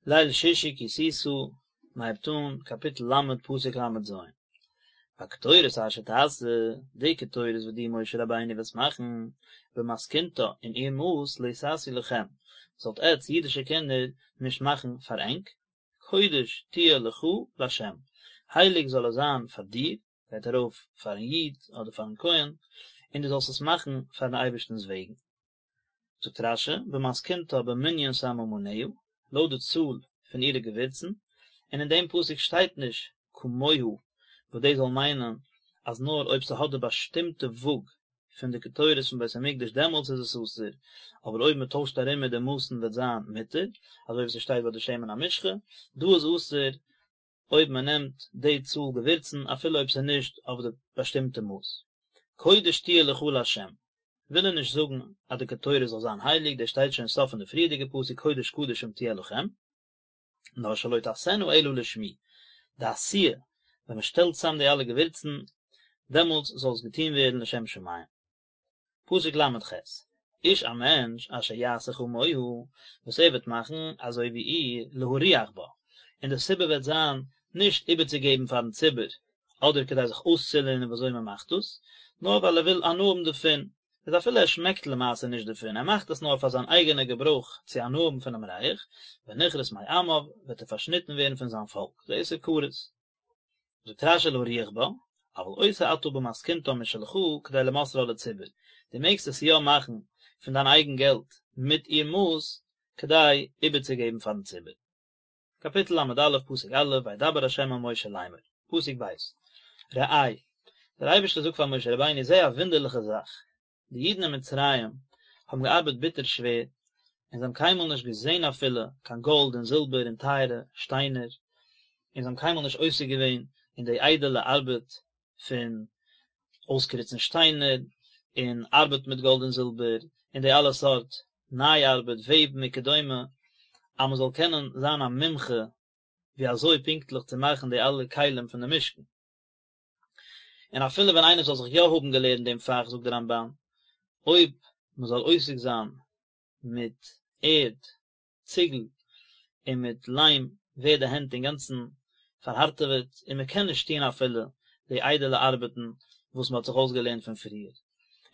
ליל שישי כי תשא, מען הייבט אן קאפיטל ל' פסוק ל"ז. והקטורת אשר תעשה, די קטורת וואס דו משה רבינו וועסט מאכן, במתכונתה אין איר מאס לא תעשו לכם, זאלט עטץ אידישע קינדער נישט מאכן פאר ענק, קודש תהיה לך לה', הייליג זאל עס זיין פאר דיר, גייט ארויף פארן איד אדער פארן כהן, און דו זאלסט עס מאכן פארן אייבערשטנ'ס וועגן. זאגט רש"י, במתכונתה במנין סממניה, לויט די צאל פון אירע געווירצן, און אין דעם פסוק שטייט נישט כמוה, וואס דאס זאל מיינען אז נאר אויב ס'האט די באשטימטע וואג פון די קטורת פון בית המקדש דעמאלטס איז עס אסור, אבער אויב מ'טוישט ארום מיט די מאסן וועט זיין מותר, אזוי ווי ס'שטייט ביי די שמן המשחה, דא איז אסור אויב מ'נעמט די צאל געווירצן אפילו אויב ס'איז נישט אויף די באשטימטע מאס. קודש תהיה לך לה' וויל ער נישט זאגן אז די קטורת זאל זיין הייליג, דאס שטייט שוין סוף פון די פריערדיגע פסוק קודש קדשים תהיה לכם, נאר שלא תעשנה אלא לשמי, די עשיה, ווען מען שטעלט צאם די אלע געווירצן, דעמאלטס זאל עס געטון ווערן לשם שמים. פסוק ל"ח, איש א מענטש אשר יעשה כמוה, וואס ער וועט מאכן אזוי ווי איר, להריח בה, און די סיבה וועט זיין נישט איבערצוגעבן פארן ציבור, אדער כדי זיך אויסצולערנען ווי אזוי מען מאכט דאס, נאר ווייל ער וויל הנאה האבן דערפון, איז אפילו ער שמעקט למעשה נישט דערפון, ער מאכט עס נאר פאר זיין אייגענע געברויך צו הנאה האבן פונעם ריח, ונכרת מעמיו, וועט ער פארשניטן ווערן פון זיין פאלק, זה איסור כרת. זאגט רש"י להריח בה, אבל עושה אתה במתכונתה משלך כדי למוסרה לציבור, דו מעגסט עס יא מאכן פון דיין אייגן געלט מיט איר מאס כדי איבערצוגעבן פארן ציבור. קאפיטל ל"א פסוק א' וידבר ה' אל משה לאמר, פסוק ב', ראה, דער אייבערשטער זאגט פאר משה רבינו זע א וואונדערליכע זאך, די אידן אין מצרים האבן געארבעט ביטער שווער, און זיי האבן קיינמאל נישט געזען אפילו קיין גאלד און זילבער און טייערע שטיינער, און זיי האבן קיינמאל נישט עוסק געווען אין די איידעלע ארבעט פון אויסקריצן שטיינער און ארבעט מיט גאלד און זילבער און די אלע סארט ניי ארבעט, וועבן וכדומה, אז מען זאל קענען זיין א מומחה ווי אזוי פונקטליך צו מאכן די אלע כלים פון די משכן. און אפילו ווען איינער זאל זיך יא האבן געלערנט דעם פאך זאגט דער רמב"ן, אויב מען זאל עוסק זיין מיט ערד, ציגל, און מיט ליים ווערט די הענט אינגאנצן פארהארטעוועט און מען קען נישט טון אפילו די איידעלע ארבעטן וואס מען האט זיך אויסגעלערנט פון פריער.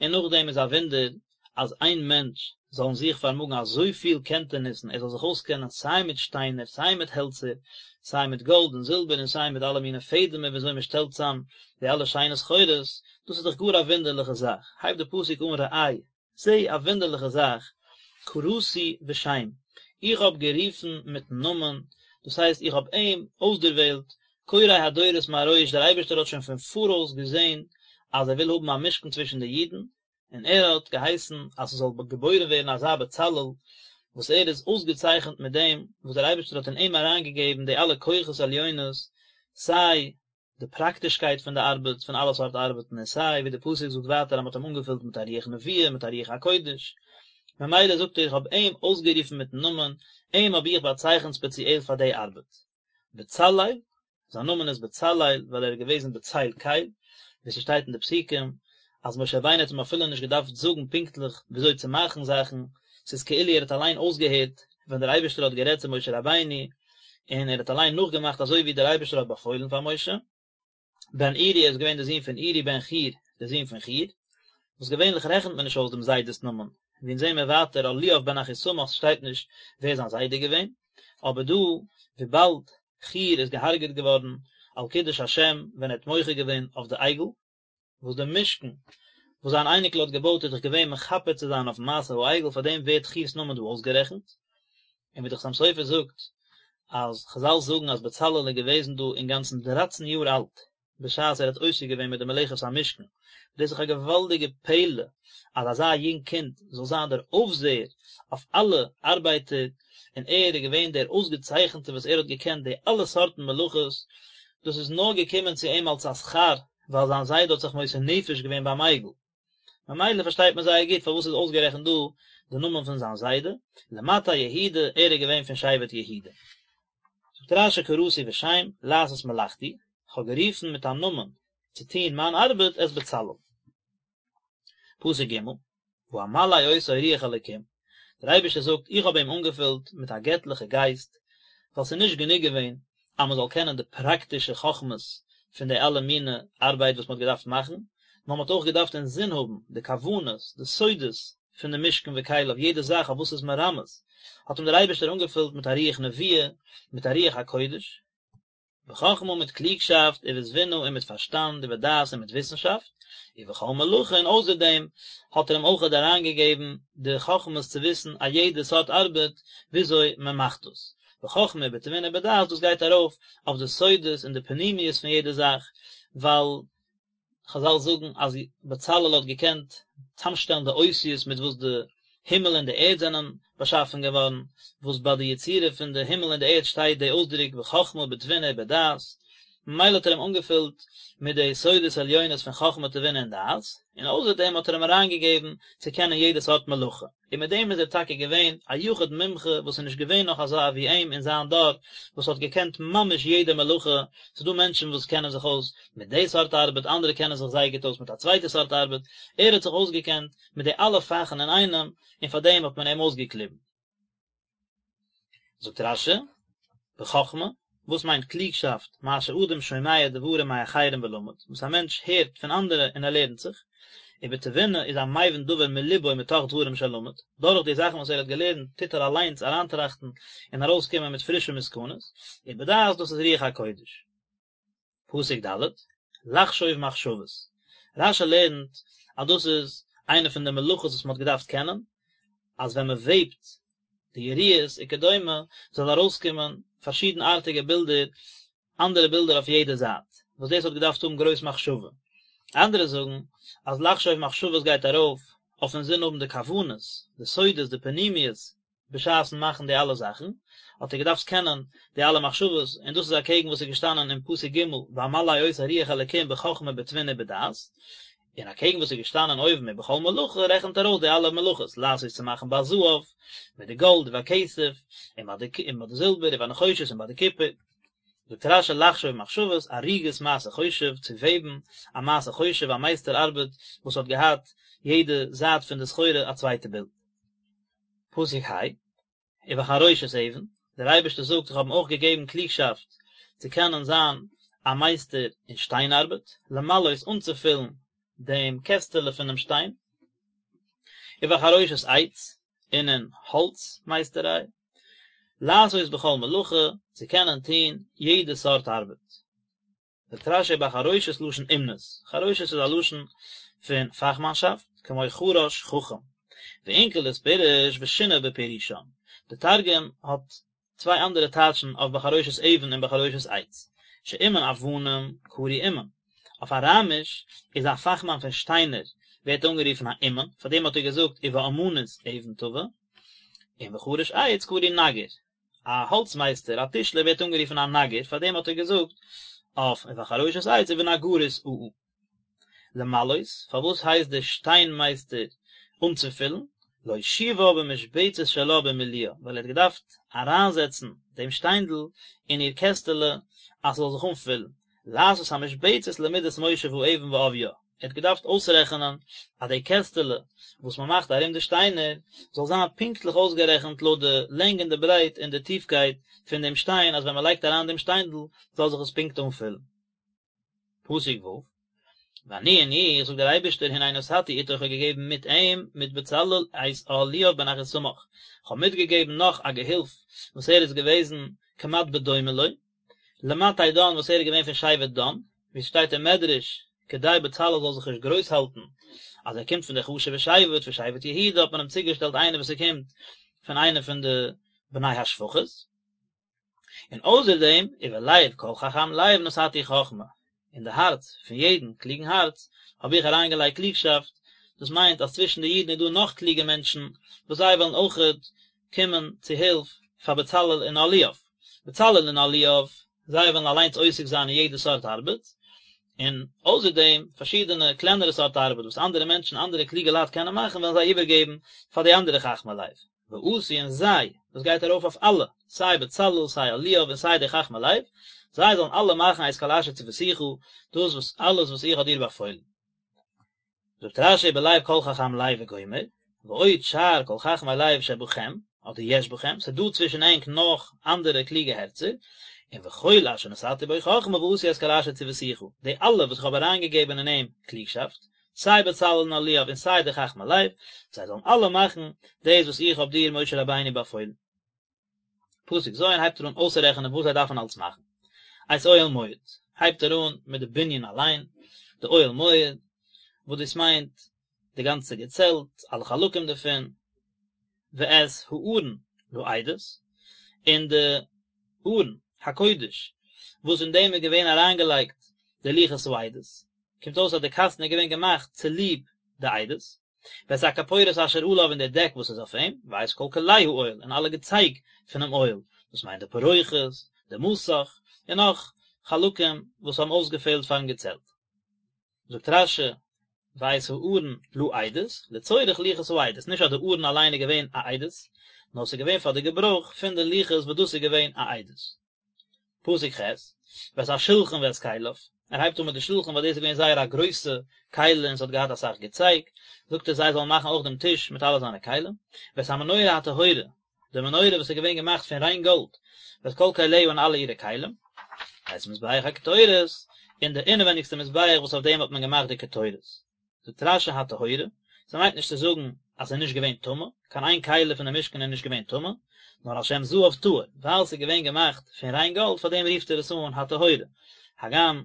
און נאכדעם איז א וואונדער אז איין מענטש זאל אין זיך פארמאגן אזויפיל קענטעניסן, ער זאל זיך אויסקענען סיי מיט שטיינער, סיי מיט העלצער, סיי מיט גאלד און זילבער און סיי מיט אלע מיני פעדעמער ווי אזוי מען שטעלט צאם די אלע שיינע סחורות, דאס איז דאך גאר א וואונדערליכע זאך, הייבט די פסוק אן ראה, זע א וואונדערליכע זאך, קראתי בשם, איך האב גערופן מיטן נאמען, דאס הייסט איך האב אים אויסדערוועלט, קורא הדורות מראש, דער אייבערשטער האט שוין פון פאראויס געזען אז ער וויל האבן א משכן צווישן די אידן, און ער האט געהייסן אז ס'זאל געבוירן ווערן אזא בצלאל, וואס ער איז אויסגעצייכנט מיט דעם וואס דער אייבערשטער האט אין אים אריינגעגעבן די אלע כוחות עליונות, סיי די פראקטישקייט פון די ארבעט, פון אלע סארט ארבעטן, און סיי ווי די פסוק זאגט ווייטער אז מ'האט אים אנגעפילט מיט א רוח נבואה, מיט א רוח הקודש, ממילא זאגט ער איך האב אים אויסגערופן מיטן נאמען, אים האב איך באצייכנט ספעציעל פאר די ארבעט. בצלאל, זיין נאמען איז בצלאל ווייל ער איז געוועזן בצל קל, ווי ס'שטייט אין די פסוקים אז משה רבינו האט אים אפילו נישט געדארפט זאגן פונקטליך וויאזוי צו מאכן זאכן, ס'איז כאילו ער האט אליין אויסגעהערט ווען דער אייבערשטער האט גערעדט צו משה רבינו, און ער האט אליין נאכגעמאכט אזוי ווי דער אייבערשטער האט באפוילן פאר משה. בן אורי ער איז געווען דער זון פון אורי בן חור דער זון פון חור, וואס געווענליך רעכנט מען נישט אויס דעם זיידע'ס נאמען, ווי אונז זעהן מיר ווייטער אהליאב בן אחיסמך שטייט נישט ווער זיין זיידע איז געווען, אבער דא וויבאלד חור איז געהארגעט געווארן על קידוש השם ווען ער האט מוחה געווען אויף די עגל, וואס דער משכן וואס זיין אייניקל האט געבויט איז דאך געווען מכפר צו זיין אויפן מעשה העגל פאר דעם ווערט חור'ס נאמען דא אויסגערעכנט, און ווי דער חתם סופר זאגט אז חזל זאגן אז בצלאל איז געוועזן דא אינגאנצן דרייצן יאר אלט בשעת ער האט עוסק געווען מיט די מלאכת המשכן, דאס איז דאך א געוואלדיגע פלא אז אזא יונג קינד זאל זיין דער אויפזעער אויף אלע ארבייטער, און ער איז געווען דער אויסגעצייכנטער וואס ער האט געקענט די אלע סארטן מלאכות, דאס איז נאר געקומען צו אים אלס א שכר ווייל זיין זיידע האט זיך מוסר נפש געווען ביים עגל. ממילא פארשטייט מען זייער גוט פארוואס איז אויסגערעכנט דא די נאמען פון זיין זיידע, למטה יהודה, ער איז געווען פון שבט יהודה. זאגט רש"י קראתי בשם, לעשות מלאכתי, כ'האב גערופן מיט א נאמען צו טון מיין ארבעט את בצלאל. פסוק ג', ואמלא אותו רוח אלקים, דער אייבערשטער זאגט איך האב אים אנגעפילט מיט א געטליכע גייסט, ווייל ס'איז נישט גענוג געווען אז מען זאל קענען די פראקטישע חכמות פון די אלע מיני ארבייט וואס מען האט געדארפט מאכן, נאר מען האט אויך געדארפט אינזין האבן די כוונות, די סודות פון די משכן וכליו, יעדע זאך אויף וואס ס'איז מרמז, האט אים דער אייבערשטער אנגעפילט מיט א רוח נבואה, מיט א רוח הקודש. בחכמה מיט קלוגשאפט, ובתבונה און מיט פארשטאנד, ובדעת און מיט וויסנשאפט, ובכל מלאכה און אויסער דעם האט ער אים אויכעט אריינגעגעבן די חכמות צו וויסן א יעדע סארט ארבעט וויאזוי מען מאכט דאס. בחכמה ובתבונה ובדעת דאס גייט ארויף אויף די סודות און די פנימיות פון יעדע זאך, ווייל חזל זאגן אז בצלאל האט געקענט צאמשטעלן די אותיות מיט וואס די הימל און די ערד זענען באשאפן געווארן, וואס ביי די יצירה פון די הימל און די ערד שטייט די אויסדרוק בחכמה בתבונה ובדעת, ממילא האט ער אים אנגעפילט מיט די סודות עליונות פון חכמה תבונה און דעת, און אויסער דעם האט ער אים אריינגעגעבן צו קענען יעדע סארט מלאכה. און מיט דעם איז ער טאקע געווען א יחיד מומחה וואס איז נישט געווען נאך אזא ווי אים אין זיין דור וואס האט געקענט ממש יעדע מלאכה, ס'איז דא מענטשן וואס קענען זיך אויס מיט די סארט ארבעט אנדערע קענען זיך זייער גוט אויס מיט א צווייטע סארט ארבעט, ער האט זיך אויסגעקענט מיט די אלע פאכן אינאיינעם און פאר דעם האט מען אים אויסגעקליבן. זאגט רש"י, בחכמה, וואס מיינט קלוגשאפט, מה שאדם שומע דברים מאחרים ולמד, וואס א מענטש הערט פון אנדערע און ער לערנט זיך, ובתבונה איז המבין דבר מלבו מתוך דברים שלמד, דורך די זאכן וואס ער האט געלערנט טוט ער אליינס אריינטראכטן און ארויסקומען מיט פרישע מסקנות, ובדעת דאס איז רוח הקודש. פסוק ד', לחשוב מחשבות, רש"י לערנט אז דאס איז איינע פון די מלאכות וואס מען האט געדארפט קענען, אז ווען מען וועבט די יריעות וכדומה זאל ארויסקומען פארשידנארטיגע בילדער, אנדערע בילדער אויף יעדע זייט, וואס דאס האט געדארפט האבן גרויס מחשבה. אנדערע זאגן אז לחשוב מחשבות גייט ארויף אויף אינזין האבן די כוונות, די סודות, די פנימיות בשעת'ן מאכן די אלע זאכן, האט ער געדארפט קענען די אלע מחשבות, און דאס איז אקעגן וואס איז געשטאנען אין פסוק ג' ואמלא אותו רוח אלקים בחכמה בתבונה ובדעת, און אקעגן וואס איז געשטאנען אויבן ובכל מלאכה רעכנט ער אויס די אלע מלאכות, לעשות צו מאכן בזהב, מיט די גאלד, ובכסף, און ביי די און ביי די זילבער, ובנחושת און ביי די קופער. זאגט רש"י לחשוב מחשבות, אריגת מעשה חושב, צו וועבן א מעשה חושב, א מייסטער ארבעט וואס האט געהאט יעדע זייט פון די סחורה א צווייטע בילד. פסוק ה', ובחרושת אבן, דער אייבערשטער זאגט איך האב אים אויך געגעבן קלוגשאפט צו קענען זיין א מייסטער אין שטיין ארבעט, למלאות אנצופילן דעם קעסטעלע פונעם שטיין, ובחרושת עץ, און אין האלץ מייסטעריי, לעשות בכל מלאכה, צו קענען טון יעדע סארט ארבעט. זאגט רש"י ובחרושת לשון אומנות, חרושת איז א לשון פון פאכמאנשאפט, כמו חרש חכם. ואונקלוס פירש ושינה בפירושם, די תרגום האט צוויי אנדערע טייטשן אויף בחרושת אבן און בחרושת עץ, שאומן אבנים קרוי אומן, אויף אראמיש איז א פאכמאן פון שטיינער ווערט אנגערופן א אומן, פאר דעם האט ער געזאגט ובאמנות אבן טובה, און וחרש עץ קרוי נגר, א האלץ מייסטער, א טישלער ווערט אנגערופן א נגר, פאר דעם האט ער געזאגט אויף ובחרושת עץ ובנגרות עאה. למלאות, פארוואס הייסט דער שטיין מייסטער אנצופילן? להושיבה במשבצת שלה במילואה, ווייל ער האט געדארפט אריינזעצן דעם שטיינדל אין איר קעסטעלע אז ס'זאל זיך אנפילן, לעשות המשבצת למידת מושב האבן ועביה, ער האט געדארפט אויסרעכענען אז די קעסטעלע וואס מען מאכט ארום די שטיינער זאל זיין פונקטליך אויסגערעכנט לויט די לענג און די ברייט און די טיפקייט פון דעם שטיין אז ווען מען לייגט אריין דעם שטיינדל זאל זיך עס פונקט אנפילן. פסוק ו', ואני און איך, זאגט דער אייבערשטער, הנה נתתי אתו איך האב געגעבן מיט אים, מיט בצלאל, את אהליאב בן אחיסמך, איך האב מיטגעגעבן נאך א געהילף וואס ער איז געוועזן כמעט בדומה לו, למטה דן וואס ער איז געווען פון שבט דן, ווי עס שטייט אין מדרש, כדי בצלאל זאל זיך נישט גרויס האלטן אז ער קומט פון די חשוב'ע שבט, פון שבט יהודה, האט מען אים צוגעשטעלט איינער וואס ער קומט פון איינע פון די בני השפחות. און אויסער דעם, ובלב כל חכם לב נתתי חכמה, אין די הארץ פון יעדן קלוגן הארץ האב איך אריינגעלייגט קלוגשאפט, דאס מיינט אז צווישן די אידן איז דא נאך קלוגע מענטשן וואס זיי וועלן אויכעט קומען צו הילף פאר בצלאל און אהליאב. בצלאל און אהליאב, זיי וועלן אליינס עוסק זיין אין יעדע סארט ארבעט, און אויסער דעם פארשידענע קלענערע סארט ארבעט וואס אנדערע מענטשן, אנדערע קלוגע לייט קענען מאכן וועלן זיי איבערגעבן פאר די אנדערע חכמי לב. ועשו און זיי, דאס גייט ארויף אויף אלע, סיי בצלאל, סיי אהליאב און סיי די חכמי לב, זיי זאלן אלע מאכן את כל אשר צויתיך, דאס וואס אלעס וואס איך האב דיר באפוילן. זאגט רש"י בלב כל חכם לב וגומר, ועוד שאר כל חכמי לב שבכם, אדער יש בכם, ס'איז דא צווישן ענק נאך אנדערע קלוגע הערצער, און וכל אשר נתתי בו חכמה ועשו את כל אשר צויתיך, די אלע וואס איך האב אריינגעגעבן אין אים קלוגשאפט, סיי בצלאל און אהליאב און סיי די חכמי לב, זיי זאלן אלע מאכן דאס וואס איך האב דיר משה רבינו באפוילן. פסוק ז' הייבט ער אן אויסצורעכענען וואס זיי דארפן אלץ מאכן. את אוהל מועד, הייבט ער אן מיט די בנין אליין, די אוהל מועד, וואס דאס מיינט די גאנצע געצעלט, אלע חלקים דערפון, ואת הארון לעדות, און די ארון הקודש וואס אין דעם איז געווען אריינגעלייגט די לוחות העדות, קומט אויס אז די קאסטן איז געווען געמאכט צוליב די עדות. ואת הכפורת אשר עליו און די דעק וואס איז אויף אים, ואת כל כלי האוהל און אלע געצייג פונעם אוהל, דאס מיינט די פרוכת, די מסך, און נאך חלקים וואס האבן אויסגעפעלט פארן געצעלט. זאגט רש"י, ואת הארון לעדות, לצורך לוחות העדות, נישט אז די ארון אליין איז געווען א עדות, נאר ס'איז געווען פאר די געברויך פון די לוחות וואס דאס איז געווען א עדות. פסוק ח', ואת השלחן ואת כליו, ער הייבט אן מיט די שלחן ווייל דאס איז געווען זייער א גרויסע כלי און ס'האט געהאט אסאך געצייג, זאגט ער זיי זאלן מאכן אויך דעם טיש מיט אלע זיינע כלים, ואת המנורה הטהורה, די מנורה וואס איז געווען געמאכט פון ריין גאלד, ואת כל כליה און אלע אירע כלים, ואת מזבח הקטורת, און די אינעווענדיגסטע מזבח וואס אויף דעם האט מען געמאכט די קטורת. זאגט רש"י הטהורה, ס'מיינט נישט צו זאגן אז ס'איז נישט געווען טמא, קיין איין כלי פון די משכן איז נישט געווען טמא, נאר על שם זהב טהור, ווייל ס'איז געווען געמאכט פון ריין גאלד פאר דעם רופט ער עס אן הטהורה, הגם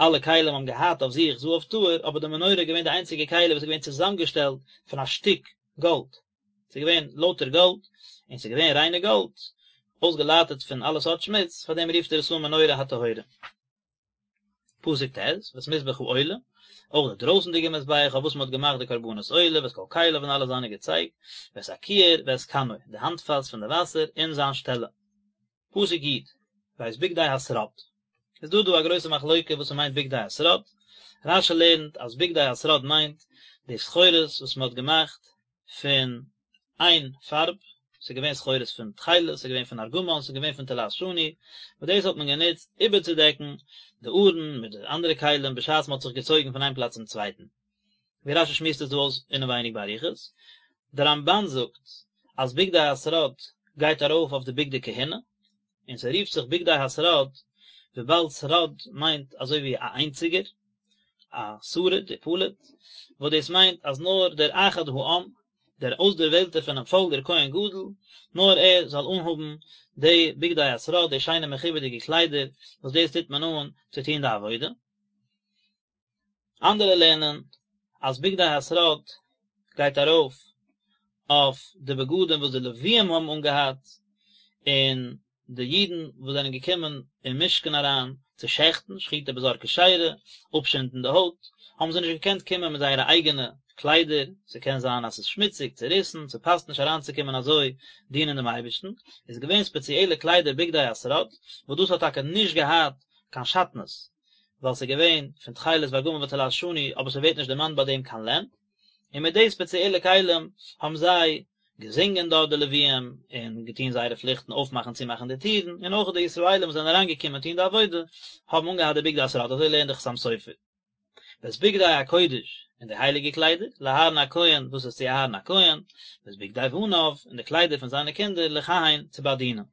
אלע כלים האבן געהאט אויף זיך זהב טהור, אבער די מנורה איז געווען די איינציגע כלי וואס איז געווען צוזאמגעשטעלט פון א שטיק גאלד, ס'איז געווען לויטער גאלד, און ס'איז געווען ריינע גאלד, אויסגעלייטערט פון אלע סארט שמוץ, פאר דעם רופט ער עס אן מנורה הטהורה. פסוק ט', ואת מזבח העולה, אויך די דרויסנדיגע מזבח אויף וואס מען האט געמאכט די קרבנות עולה, ואת כל כליו און אלע זיינע געצייג, ואת הכיור ואת כנו, די האנטפאס פון די וואסער און זיין שטעלע. פסוק י', ואת בגדי השרד. איז דא דא א גרויסע מחלוקה וואס ס'מיינט בגדי השרד, רש"י לערנט אז בגדי השרד מיינט די סחורות וואס מען האט געמאכט פון איין פארב, ס'איז געווען סחורות פון תכלת, ס'איז געווען פון ארגמן, ס'איז געווען פון תולעת שני, וואס דאס האט מען גענוצט איבערצודעקן די ארון מיט די אנדערע כלים בשעת מ'האט זיך געצויגן פון איין פלאץ צום צווייטן. ווי רש"י שמועסט עס דא אויס אינעווייניג באריכות. דער רמב"ן זאגט אז בגדי השרד גייט ארויף אויף די בגדי כהונה, און ס'רופט זיך בגדי השרד וויבאלד שרד מיינט אזוי ווי א איינציגער, א שריד ופליט, וואס דאס מיינט אז נאר דער אחד העם, דער אויסדערוועלטער פונעם פאלק דער כהן גדול, נאר ער זאל אנהאבן די בגדי השרד, די שיינע מכובד'יגע קליידער, וואס דאס טוט מען אן צו טון די עבודה. אנדערע לערנען אז בגדי השרד גייט ארויף אויף די בגדים וואס די לוויים האבן אנגעהאט, און די אידן וואס זענען געקומען אין משכן אריין צו שעכטן, שחיטה בזר כשרה, אפשינדן די הויט, האבן זיי נישט געקענט קומען מיט זייערע אייגענע קליידער, ס'קען זיין אז ס'איז שמוציג, צעריסן, ס'פאסט נישט אריינצוקומען אזוי דינען דעם אייבערשטן, איז געווען ספעציעלע קליידער בגדי השרד, וואס דאס האט טאקע נישט געהאט קיין שעטנז, ווייל ס'איז געווען פון תכלת וארגמן ותולעת שני, אבער ס'ווערט נישט דערמאנט ביי דעם קיין לען, און מיט די ספעציעלע כלים האבן זיי געזינגען דארט די לוויים, און געטון זייערע פליכטן אויפמאכן צומאכן די טירן, און אויך די ישראלים וואס זענען אריינגעקומען טון די עבודה, האבן אנגעהאט די בגדי השרד, אזוי לערנט די חתם סופר. ואת בגדי הקודש, און די הייליגע קליידער, לאהרן הכהן, דאס איז צו אהרן הכהן, ואת בגדי בניו, און די קליידער פון זיינע קינדער, לכהן, צו באדינען.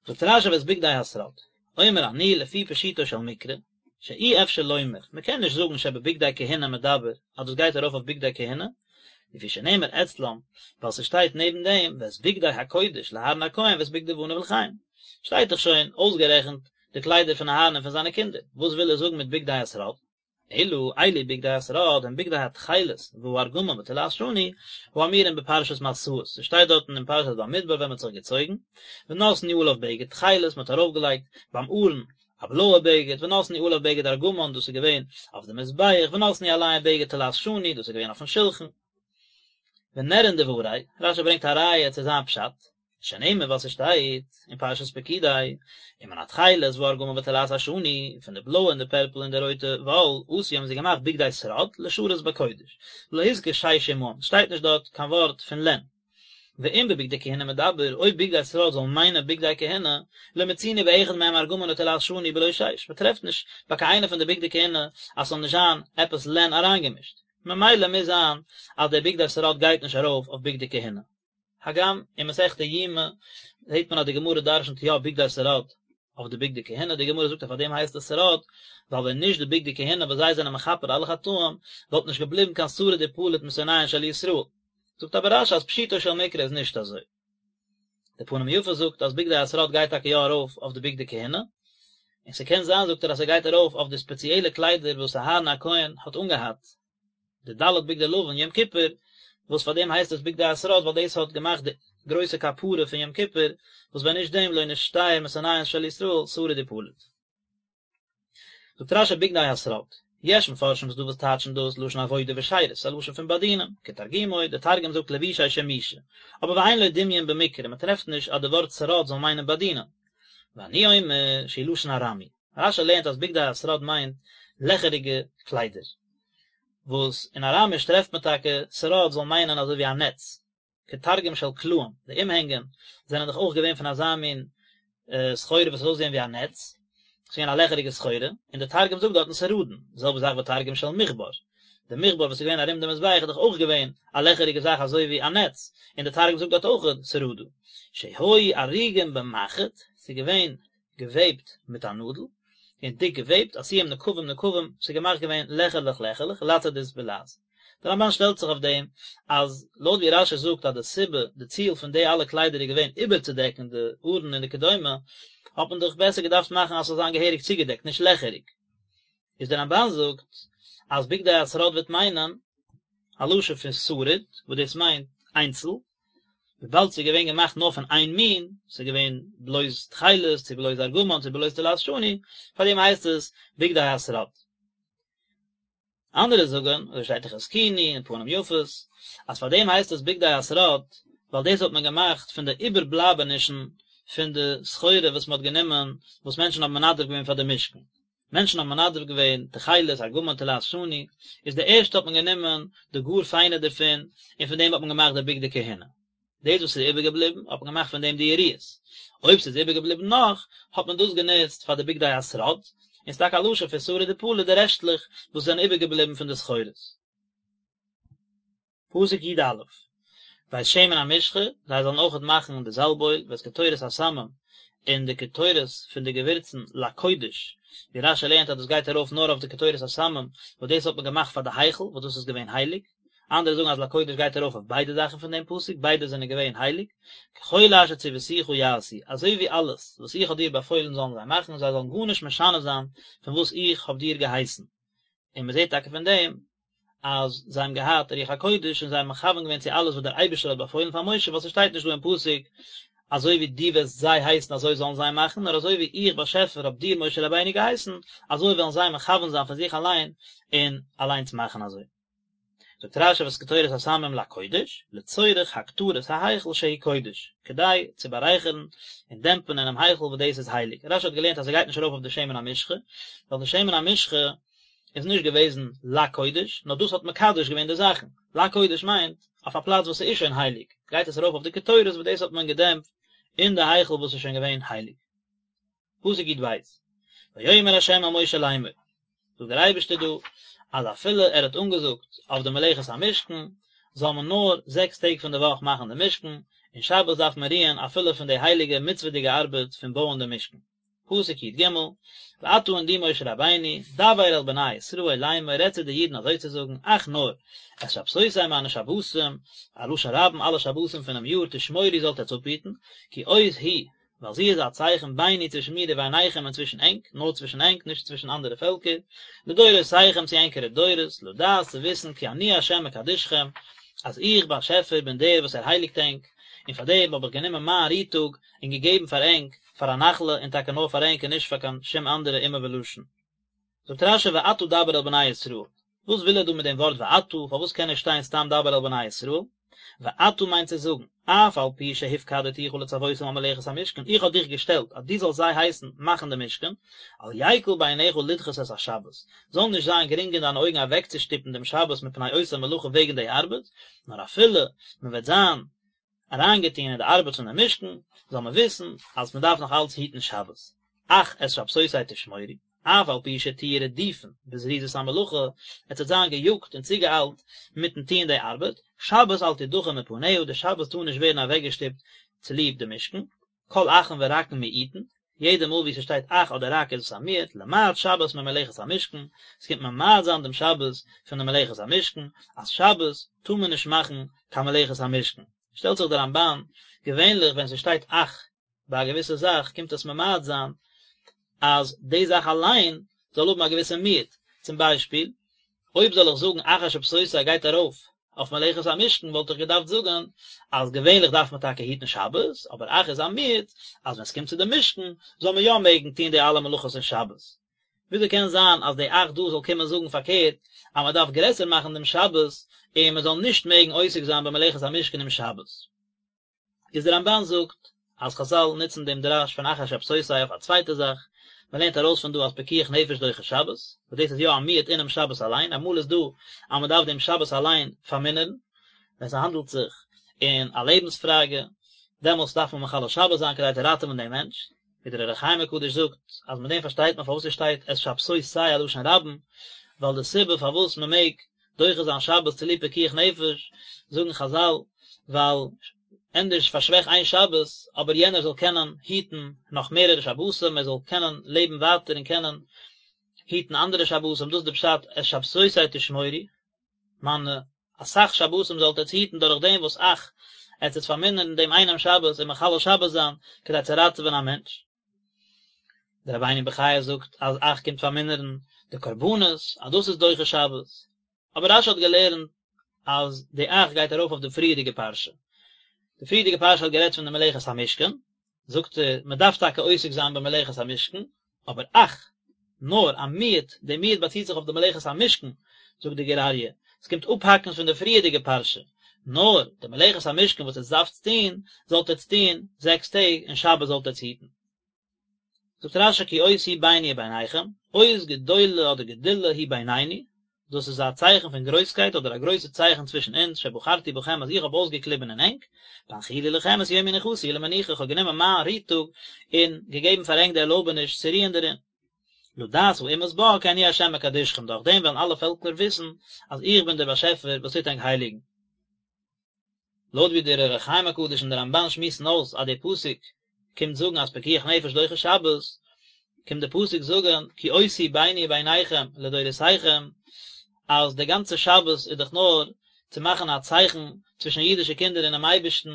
זאגט רש"י ואת בגדי השרד, אומר אני לפי פשוטו של מקרא, שאי אפשר לומר, מען קען נישט זאגן שבבגדי כהונה מדבר, אז דאס גייט ארויף אויף בגדי כהונה, לפי שנאמר אצלם, ווייל ס'שטייט נעבן דעם ואת בגדי הקודש לאהרן הכהן ואת בגדי בניו לכהן, שטייט דאך שוין אויסגערעכנט די קליידער פון אהרן און פון זיינע קינדער, וואס וויל ער זאגן מיט בגדי השרד? אלא אלו בגדי השרד הם בגדי התכלת והארגמן ותולעת שני האמורים בפרשת מסעות, ס'שטייט דארטן אין פרשת במדבר ווען מ'האט זיך געצויגן, ונתנו עליו בגד תכלת, מ'האט ארויפגעלייגט ביים ארון א בלויע בגד, ונתנו עליו בגד ארגמן, דאס איז געווען אויף די מזבח, ונתנו עליהם בגד תולעת שני, דאס איז געווען אויפן שלחן. ונראין דברי, רש"י ברענגט א ראיה צו זיין פשט, שנאמר ווייל ס'שטייט אין פרשת פקודי, ומן התכלת והארגמן ותולעת השני, פון די בלויע און די פערפל און די רויטע וואל, עשו האבן זיי געמאכט בגדי שרד לשרת בקודש, ולא הזכיר שש עמהם, ס'שטייט נישט דארט קיין ווארט פון לען. ואם בבגדי כהונה מדבר, אויב בגדי שרד זאל מיינען בגדי כהונה, לא מצינו באחד מהם ארגמן ותולעת שני בלא שש, מ'טרעפט נישט ביי קיין איינע פון די בגדי כהונה אז ס'זאל נישט זיין עפעס לען אריינגעמישט. ממילא מוז זיין אז די בגדי שרד גייט נישט ארויף אויף בגדי כהונה. הגם אין מסכת יומא זעט מען אז די גמרא דרשנ'ט יא בגדי שרד אויף די בגדי כהונה, די גמרא זאגט אז פאר דעם הייסט עס שרד, ווייל ווען נישט די בגדי כהונה וואס זיי זענען מכפר אלע חטאים, וואלט נישט געבליבן קיין שריד ופליט משונאיהן של ישראל. זאגט אבער רש"י אז פשוטו של מקרא איז נישט אזוי. די פנים יפות זאגט אז בגדי השרד גייט טאקע יא ארויף אויף די בגדי כהונה, און ס'קען זיין זאגט ער אז ס'גייט ארויף אויף די ספעציעלע קליידער וואס אהרן הכהן האט אנגעהאט, די ד' בגדי לבן יום כיפור, וואס פאר דעם הייסט עס בגדי השרד ווייל דאס האט געמאכט די גרויסע כפרה פון יום כיפור, וואס ווען נישט דעם לא נשתייר משונאיהן של ישראל שריד ופליט. זאגט רש"י בגדי השרד, יש מפרשים ס'דא וואס טייטשן דאס לשון עבודה ושירות, א לשון פון באדינען, כתרגומו, דער תרגום זאגט לבושי שימושא, אבער ואין לו דמיון במקרא, מען טרעפט נישט אז די ווארט שרד זאל מיינען באדינען. ואני אומר שהוא לשון ארמי, רש"י לערנט אז בגדי השרד מיינט לעכעריגע קליידער, וואס אין אראמיש טרעפט מען טאקע שרד זאל מיינען אזוי ווי א נעץ, כתרגום של קלעים, די אומהענגען זענען דאך אויך געווען פון אזא מין סחורה וואס האט אויסגעזען ווי א נעץ, ס'איז געווען א לעכעריגע סחורה, און דער תרגום זאגט דארטן סרדין, די זעלבע זאך ותרגום של מכבר, די מכבר וואס איז געווען ארום די מזבח איז דאך אויך געווען א לעכעריגע זאך אזוי ווי א נעץ, און דער תרגום זאגט דארט אויך סרדא, שהיו ארוגים במחט, ס'איז געווען געוועבט מיט א נאדל, און דיק געוועבט, עשויים נקבים נקבים, ס'איז געמאכט געווען לעכערלעך לעכערלעך, לצדית בלע"ז. דער רמב"ן שטעלט זיך אויף דעם, אז לויט ווי רש"י זאגט אז די סיבה, די ציל פון די אלע קליידער איז געווען איבערצודעקן די ארון און די כדומה, האט מען דאך בעסער געדארפט מאכן אז ס'זאל זיין געהעריג צוגעדעקט, נישט לעכעריג. איז דער רמב"ן זאגט אז בגדי השרד וועט מיינען א לשון פון שריד, וואס דאס מיינט איינצל, וויבאלד ס'איז געווען געמאכט נאר פון איין מין, ס'איז געווען בלויז תכלת, צו בלויז ארגמן, צו בלויז תולעת שני, פאר דעם הייסט עס בגדי השרד. אנדערע זאגן, אזוי שטייט אין חזקוני און פנים יפות, אז פאר דעם הייסט עס בגדי השרד, ווייל דאס האט מען געמאכט פון די איבערבלייבענישן פון די סחורה וואס מען האט גענומען, וואס מענטשן האבן מנדב געווען פאר די משכן. מענטשן האבן מנדב געווען תכלת, ארגמן, תולעת שני, איז די ערשטע האט מען גענומען די גאר פיינע דערפון, און פון דעם האט מען געמאכט די בגדי כהונה. דאס וואס איז איבערגעבליבן האט מען געמאכט פון דעם די יריעות. אויב ס'איז איבערגעבליבן נאך, האט מען דאס גענוצט פאר די בגדי השרד, און ס'איז טאקע א לשון פון שריד ופליט די רעשטלעך וואס זענען איבערגעבליבן פון די סחורות. פסוק י"א, ואת שמן המשחה, זיי זאלן אויכעט מאכן די זאלב-אויל, ואת קטורת הסמים, און די קטורת פון די געווירצן לקודש, ווי רש"י לערנט אז דאס גייט ארויף נאר אויף די קטורת הסמים, וואס דאס האט מען געמאכט פאר די היכל, וואס דאס איז געווען הייליג, אנדערע זאגן אז לקודש גייט ארויף אויף ביידע זאכן פון דעם פסוק, ביידע זענען געווען הייליג, ככל אשר צויתיך יעשו, אזוי ווי אלעס וואס איך האב דיר באפוילן זאלן זיי מאכן, זיי זאלן גארנישט משנה זיין פון וואס איך האב דיר געהייסן. און מען זעט טאקע פון דעם אז זיי האבן געהאט רוח הקודש און זיי האבן מכוון געווען צו אלעס וואס דער אייבערשטער האט באפוילן פאר משה, ווייל ס'שטייט נישט דא אין פסוק אזוי ווי דו וועסט זיי הייסן אזוי זאלן זיי מאכן, נאר אזוי ווי איך באשעפער האב דיר משה רבינו געהייסן, אזוי וועלן זיי מכוון זיין פון זיך אליין און אליינס מאכן אזוי. זאגט רש"י ואת קטורת הסמים לקודש, לצורך הקטרת ההיכל שהוא קודש, כדי צו בארייכערן און דעמפן אינעם היכל וואס דאס איז הייליג. רש"י האט געלערנט אז ס'גייט נישט ארויף אויף די שמן המשחה, ווייל די שמן המשחה איז נישט געוועזן לקודש, נאר דאס האט מקדש געווען די זאכן. לקודש מיינט, אויף א פלאץ וואס ס'איז שוין הייליג, גייט עס ארויף אויף די קטורת וואס דאס האט מען געדעמפט אין די היכל וואס איז שוין געווען הייליג. פסוק י"ב, ויאמר ה' אל משה לאמור, זאגט דער אייבערשטער דא, אז אפילו ער האט אנגעזאגט אויף די מלאכת המשכן, זאל מען נאר זעקס טעג פון די וואך מאכן די משכן, און שבת דארף מען רוען אפילו פון די הייליגע מצוה'דיגע ארבעט פון בויען די משכן. פסוק י"ג, ואתה און דו משה רבינו, דבר אל בני ישראל לאמור, רעד צו די אידן אזוי צו זאגן, אך נאר, את שבתותי מיינע שבתים, א לשון רבים אלע שבתים פונעם יאר, תשמורו זאלט עטץ אפהיטן, כי אות היא, ווייל זי איז א צייכן ביני צווישן מיר וביניכם און צווישן ענק, נאר צווישן ענק, נישט צווישן אנדערע פעלקער, לדורותיכם צו ענקערע דורות, לדעת צו וויסן כי אני ה' מקדשכם, אז איך באשעפער בין דער וואס ער הייליגט ענק, און פאר דעם האב איך גענומען מיין רו-טאג און געגעבן פאר ענק פאר א נחלה, און טאקע נאר פאר ענק און נישט פאר קיין שום אנדערע אומה ולשון. זאגט רש"י ואתה דבר אל בני ישראל, וואס וויל ער דא מיט דעם ווארט ואתה, פארוואס קען נישט שטיין סתם דבר אל בני ישראל? ואתה מיינט צו זאגן, אף על פי שהפקדתיך לצוותם על מלאכת המשכן, איך האב דיך געשטעלט אז דו זאלסט זיי הייסן מאכן די משכן, אל יקל בעיניך לדחות את השבת, זאל נישט זיין גרינג אין דיינע אויגן אוועקצושטופן דעם שבת מפני אותה מלאכה וועגן די ארבעט, נאר אפילו מען וועט זיין אריינגעטון אין די ארבעט פון די משכן, זאל מען וויסן אז מען דארף נאך אלץ היטן שבת. אך את שבתותי תשמורו. אף על פי שתהיו רדופין בזריזות המלאכה, עטס וועט זיין געיאגט און צוגעאיילט מיטן טוען די ארבעט, שבת אל תדחה מפניה, די שבת טאר נישט ווערן אוועקגעשטופט צוליב די משכן, כל אכין ורקין מיעוטין, יעדע מאל ווי ס'שטייט אך אדער רק איז עס א מיעוט, למעט שבת ממלאכת המשכן, ס'קומט ממעט זיין דעם שבת פון די מלאכת המשכן, אז שבת טאר מען נישט מאכן קיין מלאכת המשכן. שטעלט זיך דער רמב"ן, געווענליך ווען ס'שטייט אך ביי א געוויסע זאך קומט עס ממעט זיין אז די זאך אליין זאל האבן א געוויסע מיעוט, צום ביישפיל, אויב זאל איך זאגן אך את שבתותי גייט ארויף אויף מלאכת המשכן וואלט איך געדארפט זאגן אז געווענליך דארף מען טאקע היטן שבת, אבער אך איז א מיעוט אז ווען ס'קומט צו די משכן זאל מען יא מעגן טון די אלע מלאכות אין שבת. וויאזוי קען זיין אז די אך דא זאל קומען זאגן פארקערט אז מען דארף גרעסער מאכן דעם שבת און מען זאל נישט מעגן עוסק זיין במלאכת המשכן אום שבת? איז דער רמב"ן זאגט אז חז"ל נוצן דעם דרש פון אך את שבתותי אויף א צווייטע זאך, מען לערנט ארויס פון דא אז פיקוח נפש דוחה שבת, וואס דאס איז יא א מיעוט אינעם שבת אליין, אמאל איז דא אז מען דארף דעם שבת אליין פארמינערן, ווען ס'האנדלט זיך אין א לעבנס פראגע, דעמאלטס דארף מען מחלל שבת זיין כדי צו ראטעווען דעם מענטש, ווי דער אור החיים הקדוש זאגט אז מיט דעם פארשטייט מען פארוואס עס שטייט את שבתותי א לשון רבים, ווייל די סיבה פארוואס מען מעג דוחה זיין שבת צוליב פיקוח נפש, זאגן חז"ל, ווייל ענדערש פארשוועך איין שבת, אבער יענער זאל קענען היטן נאך מערערע שבתים, ער זאל קענען לעבן ווייטער און קענען היטן אנדערע שבתים, דאס איז די פשט את שבתותי תשמורו, מיינע אסאך שבתים זאלט עטץ היטן דורך דעם וואס אך עטץ וועט פארמינערן דעם איינעם שבת און מחלל שבת זיין כדי צו ראטעווען א מענטש. דער רבינו בחיי זאגט אז אך קומט פארמינערן די קרבנות אז דאס איז דוחה שבת, אבער רש"י האט געלערנט אז די אך גייט ארויף אויף די פריערדיגע פרשה, די פריערדיגע פרשה האט גערעדט פון די מלאכת המשכן, זאגט ער, מען דארף טאקע עוסק זיין במלאכת המשכן, אבער אך, נאר, א מיעוט, די מיעוט באציט זיך אויף די מלאכת המשכן, זאגט די גור אריה, עס קומט אפהאקן פון די פריערדיגע פרשה, נאר, די מלאכת המשכן וואס עטס דארפטס טון, זאלט עטס טון זעקס טעג, און שבת זאלט עטס היטן. זאגט רש"י כי אות היא ביני וביניכם, אות גדולה אדער גדולה היא בינינו, דאס איז א צייכן פון גרויסקייט אדער א גרויסע צייכן צווישן אונז, שבחרתי בכם אז איך האב אויסגעקליבן אין ענק, בהנחילי לכם את יום מנוחתי למנוחה, איך האב גענומען מיין רו טאג און געגעבן פאר ענק די ערלויבעניש צו רוען דערין. לדעת האומות בה כי אני ה' מקדשכם, דורך דעם וועלן אלע פעלקער וויסן אז איך בין דער באשעפער וואס טוט ענק הייליגן. לויט ווי דער אור החיים הקדוש און דער רמב"ן שמועסן אויס אז דער פסוק קומט זאגן אז פיקוח נפש דוחה שבת, קומט דער פסוק זאגן כי אות היא ביני וביניכם לדורותיכם, אז דער גאנצער שבת איז דאך נאר צו מאכן א צייכן צווישן אידישע קינדער און דעם אייבערשטן,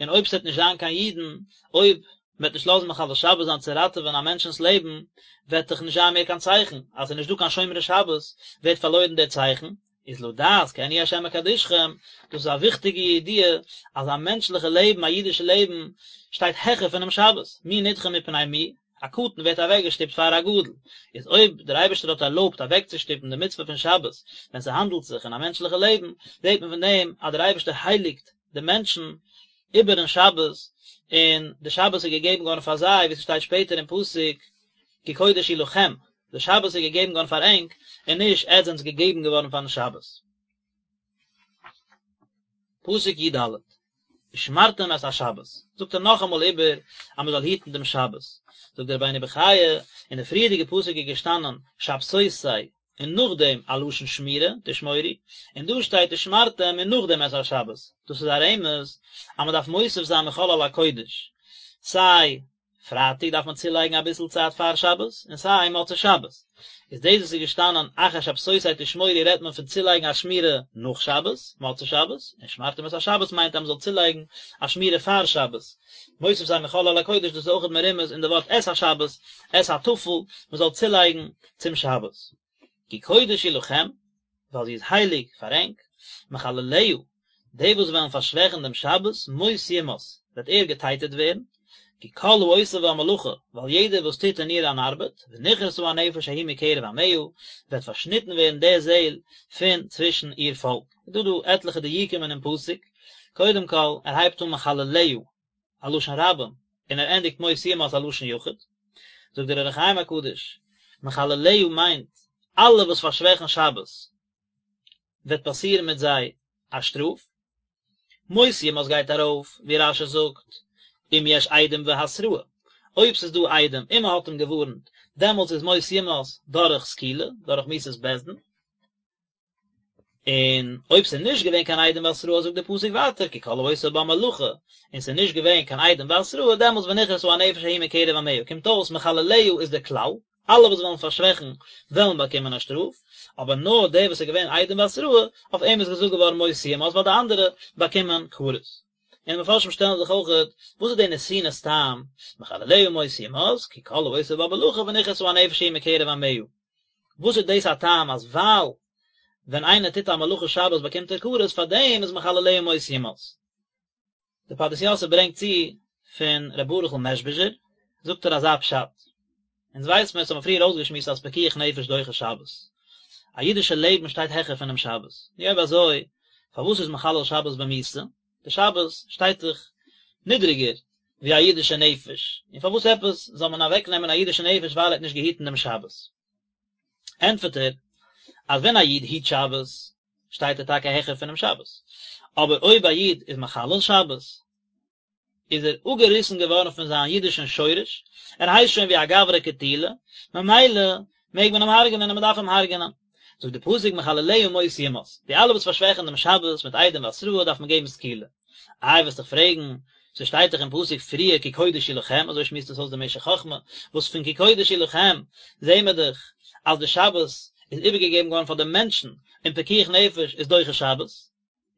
און אויב ס'וועט נישט זיין קיין אידן, אויב מ'וועט נישט לאזן מחלל שבת זיין צו ראטעווען א מענטשנ'ס לעבן, וועט דאך נישט זיין מער קיין צייכן, אז ס'איז נישט דא קיין שומרי שבת, ווערט פארלוירן דער צייכן, איז לדעת כי אני ה' מקדשכם, דאס איז א וויכטיגע ידיעה אז א מענטשליכע לעבן, א אידישע לעבן, שטייט העכער פונעם שבת, מי נדחה מפני מי, א קטן ווערט אוועקגעשטופט פאר א גדול, איז אויב דער אייבערשטער האט ערלויבט אוועקצושטופן די מצוה פון שבת ווען ס'האנדלט זיך אין א מענטשליכע לעבן, זעט מען פון דעם אז דער אייבערשטער הייליגט די מענטשן איבערן שבת, און די שבת איז געגעבן געווארן פאר זיי, ווי ס'שטייט שפעטער אין פסוק, כי קודש היא לכם, די שבת איז געגעבן געווארן פאר ענק, און נישט עטס זענטס געגעבן געווארן פארן שבת. פסוק י ד, ושמרתם את השבת, זאגט ער נאכאמאל איבער אז מען זאל היטן דעם שבת, זאגט דער רבינו בחיי, אין די פריערדיגע פסוק איז געשטאנען שבתותי און נאכדעם א לשון שמירה, תשמורו, און דא שטייט ושמרתם און נאכדעם את השבת, דאס איז א רמז אז מען דארף מוסיף זיין מחול על הקודש, סיי פרייטאג דארף מען צולייגן אביסל צייט פאר שבת, און סיי מוצאי שבת. איז דאס וואס איז געשטאנען אך את שבתותי תשמורו רעדט מען פון צולייגן א שמירה נאך שבת, מוצאי שבת, און ושמרתם את השבת מיינט אז מען זאל צולייגן א שמירה פאר שבת. מוסיף זיין מחול על הקודש דאס איז אויכעט מרומז אין די ווארט את השבת, את הטפל, מען זאל צולייגן צום שבת. כי קודש היא לכם, ווייל זי איז הייליג פאר ענק, מחלליה, די וואס וועלן פארשוועכן דעם שבת, מות יומת, וועט ער געטייטעט ווערן, כי כל העושה בה מלאכה, ווייל יעדער וואס טוט אין איר אן ארבעט, ונכרתה הנפש ההיא מקרב עמיה, וועט פארשניטן ווערן די זעל פון צווישן איר פאלק. איז דא דא עטליכע דיוקים אינעם פסוק, קודם כל, ער הייבט אן מחלליה, א לשון רבים, און ער ענדיגט מות יומת א לשון יחיד. זאגט דער אור החיים הקדוש, מחלליה מיינט אלע וואס פארשוועכן שבת, וועט פאסירן מיט זיי א שטראף. מות יומת גייט ארויף, ווי רש"י זאגט, אם יש עדים והתראה, אויב ס'איז דא עדים און מ'האט אים געווארנט, דעמאלטס איז מות יומת דורך סקילה, דורך מיתת בית דין. און אויב ס'איז נישט געווען קיין עדים והתראה זאגט דער פסוק ווייטער כי כל העושה בה מלאכה, און ס'איז נישט געווען קיין עדים והתראה דעמאלטס ונכרתה הנפש ההיא מקרב עמיה, קומט אויס מחלליה איז דער כלל, אלע וואס וועלן פארשוועכן וועלן באקומען א שטראף, אבער נאר דער וואס איז געווען עדים והתראה, אויף אים איז געזאגט געווארן מות יומת ווייל די אנדערע באקומען כרת. און די מפרשים שטעלן זיך אויכעט, וואס איז די נתינת טעם, מחלליה מות יומת, כי כל העושה בה מלאכה ונכרתה הנפש ההיא מקרב עמיה. וואס איז דאס א טעם אז ווייל ווען איינער טוט א מלאכה שבת באקומט ער כרת, פארדעם איז מחלליה מות יומת. דער פרדס יוסף ברענגט צו פון ר' ברוכ'ל מעזשביזשער, זאגט ער אזא פשט, אונז ווייס מיר, עס האט מען פריער אויסגעשמועסט אז פיקוח נפש דוחה שבת, א אידישע לעבן שטייט העכער פונעם שבת, נו אויב אזוי פארוואס איז מחלל שבת במיתה? די שבת שטייט דאך נידריגער ווי א אידישע נפש, און פארוואס עפעס זאל מען אוועק נעמען א אידישע נפש ווייל ער האט נישט געהיטן דעם שבת? ענטפערט ער אז ווען א איד היט שבת שטייט ער טאקע העכער פונעם שבת, אבער אויב א איד איז מחלל שבת איז ער אפגעריסן געווארן פון זיין אידישן שורש, ער הייסט שוין ווי א גברא קטילא, ממילא מעג מען אים הרג'נען און מען דארף אים הרג'נען. זאגט די פסוק מחלליה מות יומת, די אלע וואס פארשוועכן דעם שבת מיט עדים והתראה דארף מען געבן סקילה. איי וועסט דאך פרעגן, ס'שטייט דאך אין פסוק פריער כי קודש היא לכם, אזוי שמועסט עס אויס דער משך חכמה, וואס פון כי קודש היא לכם זעהן מיר דאך אז די שבת איז איבערגעגעבן געווארן פאר די מענטשן, און פיקוח נפש איז דוחה שבת.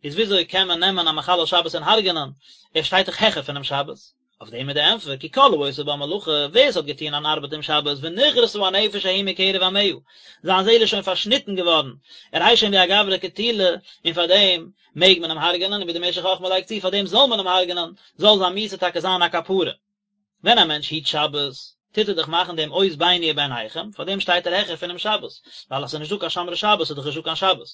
איז וויאזוי קען מען נעמען א מחלל שבת און הרג'נען, ער שטייט דאך העכער פונעם שבת? אויף דעם איז די ענטפער, כי כל העושה בה מלאכה, ווער עס האט געטון אן ארבעט אום שבת, ונכרתה הנפש ההיא מקרב עמיה, זיין זעהל איז שוין פארשניטן געווארן, ער הייסט שוין ווי א גברא קטילא, און פאר דעם מעג מען אים הרג'נען, און ווי דער משך חכמה לייגט צו, פאר דעם זאל מען אים הרג'נען, זאל זיין מיתה טאקע זיין א כפרה. ווען א מענטש היט שבת, טוט ער דאך מאכן דעם אות ביני וביניכם, פאר דעם שטייט ער העכער פונעם שבת, ווייל אז ס'איז נישטא קיין שומרי שבת איז דאך נישטא קיין שבת,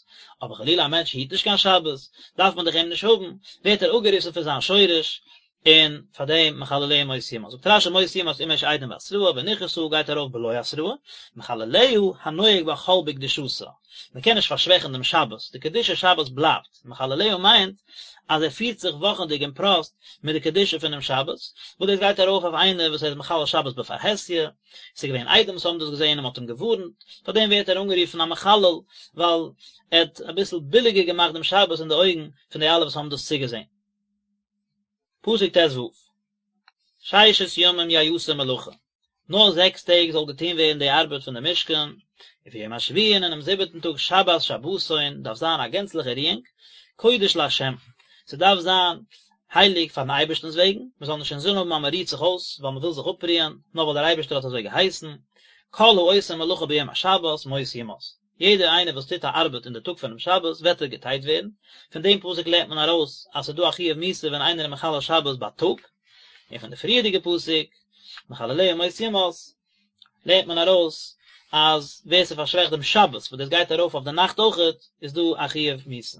אבער חלילה א מענטש היט נישט קיין שבת, דארף מען דאך אים נישט האבן, ווערט ער אפגעריסן פון זיין שורש, און פאר דעם מחלליה מות יומת. זאגט רש"י מות יומת אם יש עדים והתראה ונכרתה גייט ארויף בלא התראה, מחלליה הנוהג בה חול בקדושתה, מען קען נישט פארשוועכן דעם שבת, די קדושת שבת בלייבט, מחלליה מיינט אז ער פירט זיך וואכענדיג און פראסט מיט די קדושה פונעם שבת, וואס דאס גייט ארויף אויף איינער וואס ער איז מחלל שבת בפרהסיא, עס איז געווען עדים וואס האבן דאס געזען און מען האט אים געווארנט, פאר דעם ווערט ער אנגערופן א מחלל, ווייל ער האט אביסל ביליגער געמאכט דעם שבת אין די אויגן פון די אלע וואס האבן דאס צוגעזען. פסוק ט"ו, ששת ימים יעשה מלאכה, נאר זעקס טעג זאל געטון ווערן די ארבעט פון די משכן, וביום השביעי און אינעם זיבעטן טאג שבת שבתון דארף זיין א גענצליכע רואונג, קודש לה', ס'דארף זיין הייליג פארן אייבערשטנ'ס וועגן, מ'זאל נישט אינזין האבן אז מ'רוהט זיך אויס ווייל מ'וויל זיך אפרוען, נאר ווייל דער אייבערשטער האט אזוי געהייסן, כל העושה מלאכה ביום השבת מות יומת. יעדער איינער וואס טוט א ארבעט אין די טאג פונעם שבת וועט ער געטייט ווערן, פון דעם פסוק לערנט מען ארויס אז ס'איז דא א חיוב מיתה ווען איינער איז מחלל שבת בייטאג, און פון די פריערדיגע פסוק מחלליה מות יומת לערנט מען ארויס אז ווער ס'פארשוועכט דעם שבת וואס דאס גייט ארויף אויף די נאכט אויכעט איז דא א חיוב מיתה.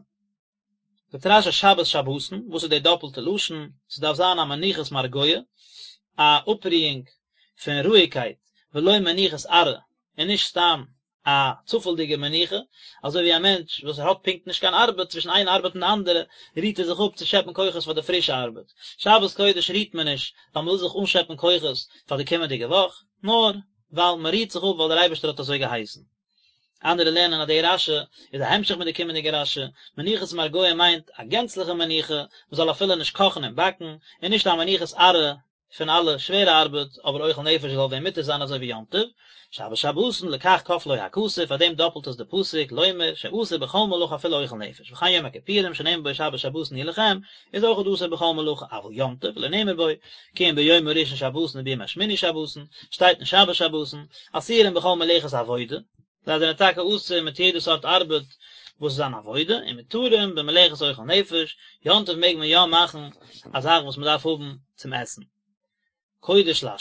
זאגט רש"י שבת שבתון, וואס איז די דאפלטע לשון? ס'דארף זיין א מנוחת מרגוע, א אפרואונג פון רואיגקייט, ולא מנוחת עראי, און נישט סתם א צופעלדיגע מנוחה, אזוי ווי א מענטש וואס ער האט פונקט נישט קיין ארבעט, צווישן איין ארבעט און די אנדערע רוהט ער זיך אפ צו שעפן כוחות פאר די פרישע ארבעט. שבת קודש רוהט מען נישט ווייל מ'וויל זיך אנשעפן כוחות פאר די קומענדיגע וואך, נאר ווייל מ'רוהט זיך אפ ווייל דער אייבערשטער האט אזוי געהייסן. אנדערע לערנען אז די רש"י איז א המשך מיט די קומענדיגע רש"י, מנוחת מרגוע מיינט א גענצליכע מנוחה, מ'זאל אפילו נישט קאכן און באקן, און נישט א מנוחת עראי פון אלע שווערע ארבעט, אבער אוכל נפש זאל ווען מותר זיין אזוי ווי יום טוב, שבת שבתון לכך כפלו הכתוב, פאר דעם דאפלט עס די פסוק, לומר, שאסור בכל מלאכה אפילו אוכל נפש, וכן יום הכיפורים שנאמר בו שבת שבתון היא לכם, איז אויך אסור בכל מלאכה, אבל יום טוב, לא נאמר בו, כי אם ביום הראשון שבתון וביום השמיני שבתון, שטייט נישט שבת שבתון, אסורים בכל מלאכת עבודה, זיי זענען טאקע אסור מיט יעדע סארט ארבעט וואס איז אן עבודה, און מותרים במלאכת אוכל נפש, יום טוב מעג מען יא מאכן א זאך וואס מען דארף האבן צום עסן. קודש לה',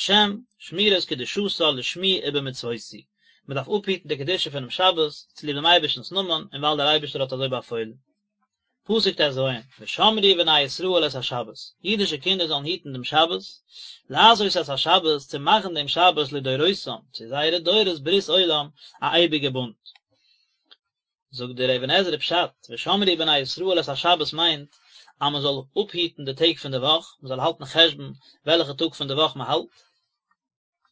שמירת קדושתה לשמי ובמצוותי, מען דארף אפהיטן די קדושה פונעם שבת צוליב דעם אייבערשטנ'ס נאמען און ווייל דער אייבערשטער האט אזוי באפוילן. פסוק ט"ז, ושמרו בני ישראל את השבת, אידישע קינדער זאלן היטן דעם שבת, לעשות את השבת, צו מאכן דעם שבת לדורותם, צו זייערע דורות ברית עולם, א אייביגע בונד. זאגט דער אבן עזרא פשט, ושמרו בני ישראל את השבת מיינט אז מען זאל אפהיטן די טעג פון די וואך, מען זאל האלטן חשבון וועלכע טאג פון די וואך מען האלט.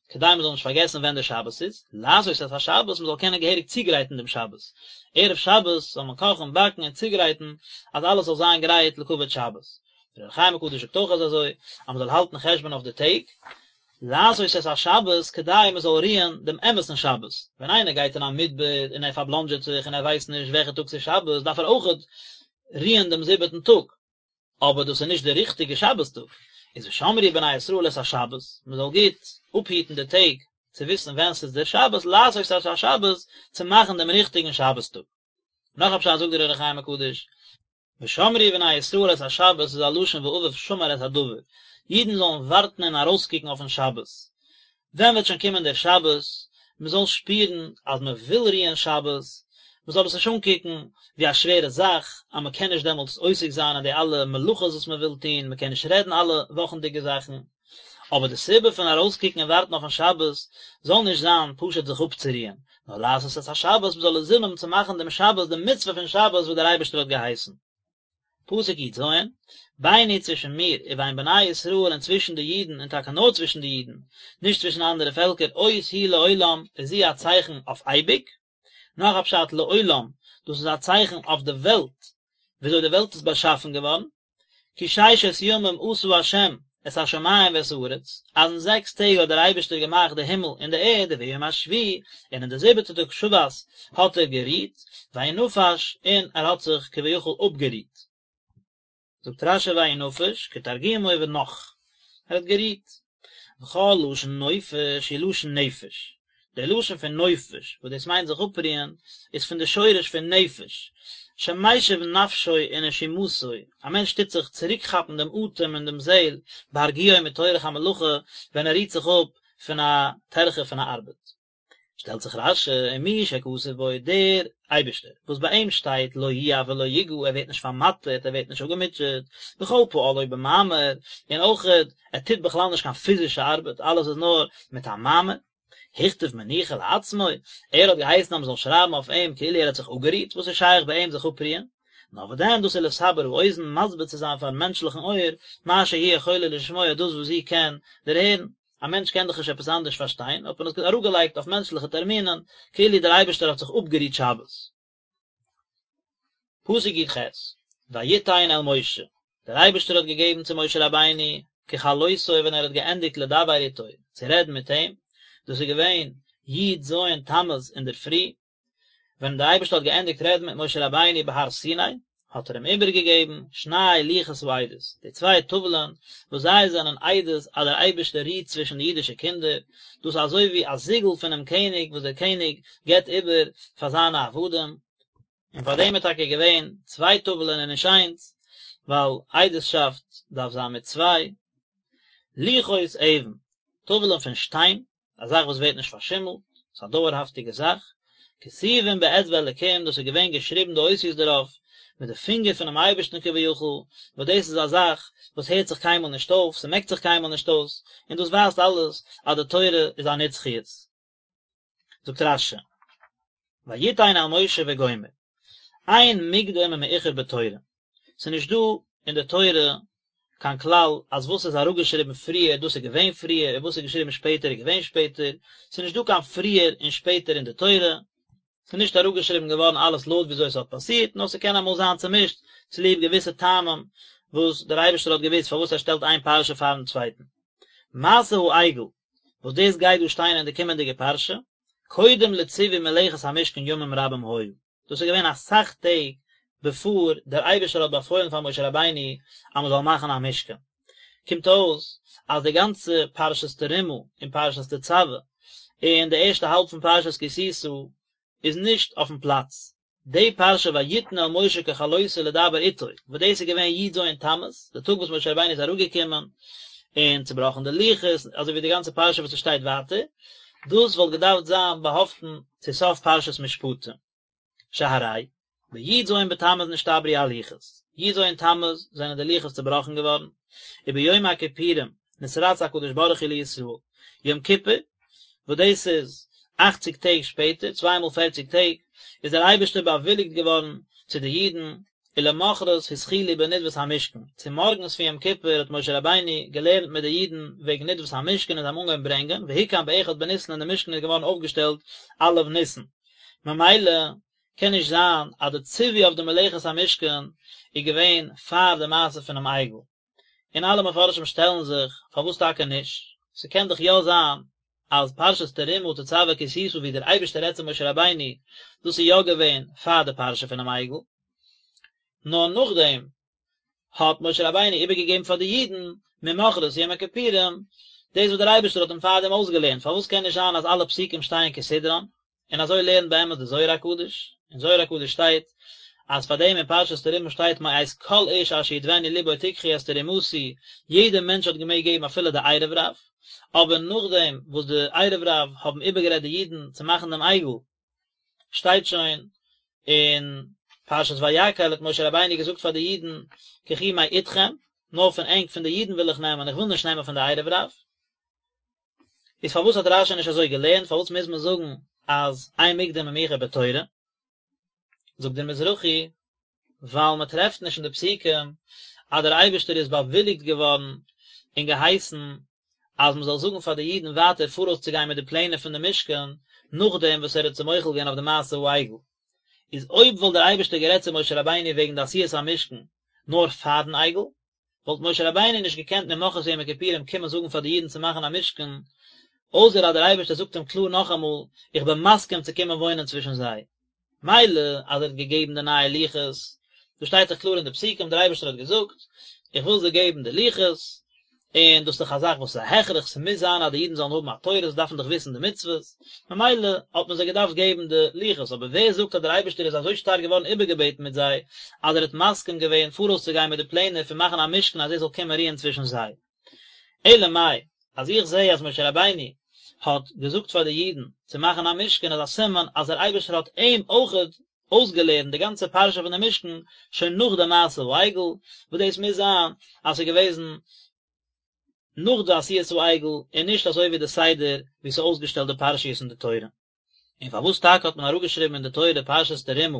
כדי מען זאל נישט פארגעסן ווען דער שבת איז, לעשות את השבת, מען זאל קענען געהעריג צוגרייטן דעם שבת, ערב שבת זאל מען קאכן, באקן און צוגרייטן אז אלעס זאל זיין גרייט לכבוד שבת. דער אור החיים הקדוש זאגט אויך אז אזוי, אז מען זאל האלטן חשבון אויף די טעג, לעשות את השבת כדי מען זאל רוען דעם אמת'ן שבת, ווען איינער גייט אין א מדבר און ער פארבלאנדזשעט זיך און ער ווייסט נישט וועלכע טאג ס'איז שבת דארף ער אויכעט רוען דעם זיבעטן טאג, אבער דאס איז נישט דער ריכטיגע שבת טאג, איז ושמרו בני ישראל את השבת, מען זאל גוט אפהיטן די טעג צו וויסן ווען ס'איז דער שבת, לעשות את השבת, צו מאכן דעם ריכטיגן שבת טאג. נאך א פשט זאגט דער אור החיים הקדוש, ושמרו בני ישראל את השבת איז א לשון ואביו שמר את הדבר, אידן זאלן ווארטן און ארויסקוקן אויפן שבת, ווען וועט שוין קומען דער שבת, מען זאל שפירן אז מען וויל רוען שבת, מען זאל עס נישט אנקוקן ווי א שווערע זאך, אז מען קען נישט דעמאלטס עוסק זיין אין די אלע מלאכות וואס מען וויל טון, מען קען נישט רעדן אלע וואכנדיגע זאכן, אבער די סיבה פון ארויסקוקן און ווארטן אויפן שבת זאל נישט זיין פשוט זיך אפצורוען, נאר לעשות את השבת, מען זאל אינזין האבן צו מאכן דעם שבת, די מצוה פון שבת וואס דער אייבערשטער האט געהייסן. פסוק י ז, ביני צווישן מיר ובין בני ישראל און צווישן די אידן און טאקע נאר צווישן די אידן, נישט צווישן אנדערע פעלקער, אות היא לעולם איז זי א צייכן אויף אייביג, נאך א פשט לעולם, דאס איז א צייכן אויף די וועלט, וויאזוי די וועלט איז באשאפן געווארן, כי ששת ימים עשה ה' את השמים ואת הארץ, אז אין זעקס טעג האט דער אייבערשטער געמאכט די הימל און די ערד, וביום השביעי, און אין די זיבעטע טאג שבת האט ער גערוהט, וינפש, און ער האט זיך כביכול אפגערוהט. זאגט רשי וינפש, כתרגומו ונח, ער האט גערוהט. וכל לשון נופש הוא לשון נפש, דער לשון פון נופש, וואס דאס מיינט זיך אפרוען, איז פון די שורש פון נפש, שמשיב נפשו ונשימתו, א מענטש טוט זיך צוריקכאפן דעם אטעם און דעם זעל, בהרגיעו מטורח המלאכה, ווען ער רוהט זיך אפ פון א טרחה פון א ארבעט. שטעלט זיך רשי, ומי שכתוב בו, דער אייבערשטער, וואס ביי אים שטייט לא ייאף ולא יגע, ער ווערט נישט פארמאטערט, ער ווערט נישט אפגעמוטשעט, וכל פועלו במאמר, און אויכעט, ער טוט בכלל נישט קיין פיזישע ארבעט, אלעס איז נאר מיט א מאמר. הכתיב מנוחה לעצמו, ער האט געהייסן אז מען זאל שרייבן אויף אים כאילו ער האט זיך אפגערוהט, וואס איז שייך ביי אים זיך אפרוען? נאר וואס דען, דאס איז לסבר האוזן, מסביר צו זיין פארן מענטשליכן אויער, מה שהיא יכולה לשמוע, דאס וואס זי קען דערהערן. א מענטש קען דאך נישט עפעס אנדערש פארשטיין, האט מען עס אראפגעלייגט אויף מענטשליכע טערמינען, כאילו דער אייבערשטער האט זיך אפגערוהט שבת. פסוק י ח, ויתן אל משה, דער אייבערשטער האט געגעבן צו משה רבינו, ככלותו ווען ער האט געענדיגט לדבר איתו, צו רעדן מיט אים, דאס איז געווען י ז תמוז אינדערפרי, ווען דער אייבערשטער האט געענדיגט רעדן מיט משה רבינו בהר סיני, האט ער אים איבערגעגעבן שני לוחות העדות, די צוויי טאוולען וואס זיי זענען עדות אז דער אייבערשטער רוהט צווישן די אידישע קינדער, דאס איז אזוי ווי א זיגל פונעם קעניג וואס דער קעניג גיבט איבער פאר זיינע עבדים, און פאר דעם איז טאקע געווען צוויי טאוולען און נישט איינס, ווייל עדות'שאפט דארף זיין מיט צוויי. לוחות אבן, טאוולען פון שטיין, א זאך וואס ווערט נישט פארשימלט, ס'איז א דויערהאפטיגע זאך, כתובים באצבע אלקים, דאס איז געווען געשריבן די אותיות דערויף מיט די פינגער פונעם אייבערשטן כביכול, וואס דאס איז א זאך וואס הערט זיך קיינמאל נישט אויף, ס'מעקט זיך קיינמאל נישט אויס, און דאס ווייזט אלעס אז די תורה איז א נצחיות. זאגט רשי, ויתן אל משה וגומר, אין מוקדם ומאוחר בתורה, ס'איז נישט דא אין די תורה קיין כלל אז וואס איז אראפגעשריבן פריער דאס איז געווען פריער און וואס איז געשריבן שפעטער איז געווען שפעטער, ס'איז נישט דא קיין פריער און שפעטער אין די תורה, ס'איז נישט אראפגעשריבן געווארן אלעס לויט וויאזוי עס האט פאסירט, נאר ס'קען אמאל זיין צומישט צוליב געוויסע טעמים וואס דער אייבערשטער האט געוואוסט פארוואס ער שטעלט איין פרשה פארן צווייטן. מעשה העגל, וואס דאס גייט דא שטיין אין די קומענדיגע פרשה, קודם לציווי מלאכת המשכן ימים רבים היו, דאס איז געווען אסאך טעג בעפאר דער אייבערשטער האט באפוילן פאר משה רבינו אז מען זאל מאכן א משכן. קומט אויס אז די גאנצע פרשת תרומה און פרשת תצוה און די ערשטע האלב פון פרשת כי תשא איז נישט אויפן פלאץ. די פרשה ויתן אל משה ככלותו לדבר איתו, וואס דאס איז געווען י ז תמוז, די טאג וואס משה רבינו איז אראפגעקומען און צובראכן די לוחות, אזוי ווי די גאנצע פרשה וואס עס שטייט ווייטער, דאס וואלט געדארפט זיין באהאפטן צו סוף פרשת משפטים. שהרי, בי ז בתמוז נשתברו הלוחות, י ז תמוז זענען די לוחות צובראכן געווארן, וביום הכיפורים נתרצה הקדוש ברוך הוא לישראל, יום כיפור, וואס דאס איז אכציג טעג שפעטער, צוויי מאל פערציג טעג, איז דער אייבערשטער באוויליגט געווארן צו די אידן, ולמחרת התחילו בנדבת המשכן, צומארגנס פון יום כיפור האט משה רבינו געלערנט מיט די אידן וועגן נדבת המשכן און זיי האבן אנגעהויבן ברענגען, והוקם באחד בניסן און די משכן איז געווארן אויפגעשטעלט א' ניסן. ממילא קען נישט זיין אז די ציווי אויף די מלאכת המשכן איז געווען פאר די מעשה פונעם עגל. און אלע מפרשים שטעלן זיך פארוואס טאקע נישט, ס'קען דאך יא זיין אז פרשת תרומה תצוה כי תשא ווי דער אייבערשטער רעדט צו משה רבינו, דאס איז יא געווען פאר די פרשה פונעם עגל, נאר נאכדעם האט משה רבינו איבערגעגעבן פאר די אידן ממחרת יום הכיפורים דאס וואס דער אייבערשטער האט אים פארדעם אויסגעלערנט, פארוואס קען נישט זיין אז אלע פסוקים שטייען כסדרן? און אזוי לערנט באמת די זוהר הקדוש, אין זוהר הקדוש שטייט אז פאר דעם אין פרשת תרומה שטייט מאת כל איש אשר ידבנו לבו תקחו את תרומתי, יעדער מענטש האט געמעגט געבן אפילו די ערב רב, אבער נאכדעם וואס די ערב רב האבן איבערגערעדט די אידן צו מאכן דעם עגל, שטייט שוין אין פרשת ויקהל האט משה רבינו געזאגט פאר די אידן קחו מאתכם, נאר פון ענק פון די אידן וויל איך נעמען, איך וויל נישט נעמען פון די ערב רב. איז פארוואס האט רשי נישט אזוי געלערנט, פארוואס מוז מען זאגן אז אין מוקדם ומאוחר בתורה? זאגט דער מזרחי, ווייל מען טרעפט נישט אין די פסוקים אז דער אייבערשטער איז באוויליגט געווארן און געהייסן אז מען זאל זאגן פאר די אידן ווייטער פאראויס צו גיין מיט די פלענער פון די משכן נאכדעם וואס ער האט זיי מוחל געווען אויף די מעשה העגל. איז אויב וואלט דער אייבערשטער גערעדט צו משה רבינו וועגן די עשיית המשכן נאר פארן עגל, וואלט משה רבינו נישט געקענט ממחרת יום הכיפורים קומען זאגן פאר די אידן צו מאכן א משכן, אויסער אז דער אייבערשטער זאגט אים קלאר נאכאמאל, איך בין מסכים צו קומען וואוינען צווישן זיי. מילא אז ער האט געגעבן די נייע לוחות, דאס שטייט דאך קלאר אין די פסוקים, דער אייבערשטער האט געזאגט, איך וויל זיי געבן די לוחות, און דאס איז דאך א זאך וואס איז א הכרח, ס'מוז זיין אז די אידן זאלן האבן א תורה, זיי דארפן דאך וויסן די מצוות, ממילא האט מען זיי געדארפט געבן די לוחות, אבער ווער זאגט אז דער אייבערשטער איז אזוי שטארק געווארן איבערגעבעטן מיט זיי, אז ער האט מסכים געווען פאראויס צו גיין מיט די פלענער פון מאכן א משכן אז ער זאל קומען רוען צווישן זיי. אלא מאי, אז איך זע אז משה רבינו האט געזאגט פאר די אידן צו מאכן א משכן איז א סימן אז דער אייבערשטער האט אים אויכעט אויסגעלערנט די גאנצע פרשה פון די משכן שוין נאך די מעשה העגל, וואס דאס מוז זיין אז ס'איז געוועזן נאך די עשיית העגל און נישט אזוי ווי די סדר ווי ס'איז אויסגעשטעלט די פרשיות אין די תורה. און פארוואס טאקע האט מען אראפגעשריבן אין די תורה פרשת תרומה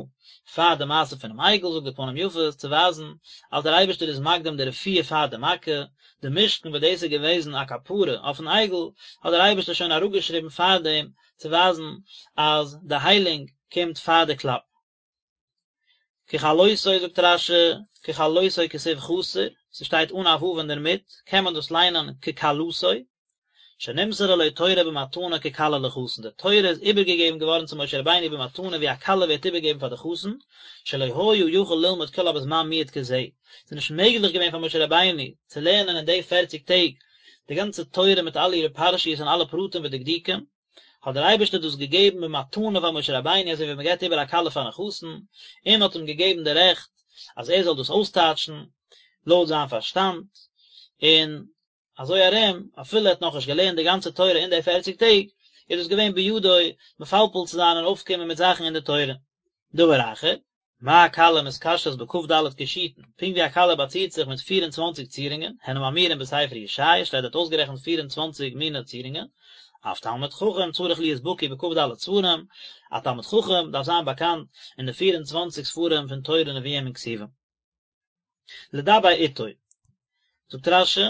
פאר די מעשה פונעם עגל, זאגט די פנים יפות צו ווייזן אז דער אייבערשטער איז מקדים די רפואה פאר די מכה, די משכן וואס דאס איז געוועזן א כפרה אויפן עגל, האט דער אייבערשטער שוין אראפגעשריבן פארדעם צו ווייזן אז די היילונג קומט פאר די קלאפ. ככלותו זאגט רש"י, ככלותו כתיב חסר, ס'שטייט אן א ו' אינדערמיט, קען מען דאס ליינען ככלתו, שנמסרה לו תורה במתנה ככלה לחתן, די תורה איז איבערגעגעבן געווארן צו משה רבינו במתנה ווי א כלה ווערט איבערגעגעבן פאר די חתן, שלא היה יכול ללמוד כולה בזמן מועט כזה, ס'איז נישט מעגליך געווען פאר משה רבינו צו לערנען אין די פערציג טעג די גאנצע תורה מיט אלע אירע פרשיות און אלע פרטים ודקדוקים, האט דער אייבערשטער דאס געגעבן במתנה פאר משה רבינו אזוי ווי מען געבט איבער א כלה פארן חתן, און האט אים געגעבן די רעכט אז ער זאל דאס אויסטייטשן לויט זיין פארשטאנד, און אזוי ארום אפילו ער האט נאכנישט געלערנט די גאנצע תורה אין די פערציג טעג, איז דאס געווען בידו מפלפל צו זיין און אויפקומען מיט זאכן אין די תורה. דבר אחר, מה כלה מתקשטת בכ"ד קישוטין, פונקט ווי א כלה באצירט זיך מיט פיר און צוואנציג צירונגען, הן האמורים בספר ישעיה, שטייט דארט אויסגערעכנט פיר און צוואנציג מיני צירונגען, אף תלמיד חכם צריך להיות בקי בכ"ד ספרים, א תלמיד חכם דארף זיין באקאנט אין די פיר און צוואנציג ספרים פון תורה נביאים און כתובים. לדבר איתו. זאגט רש"י,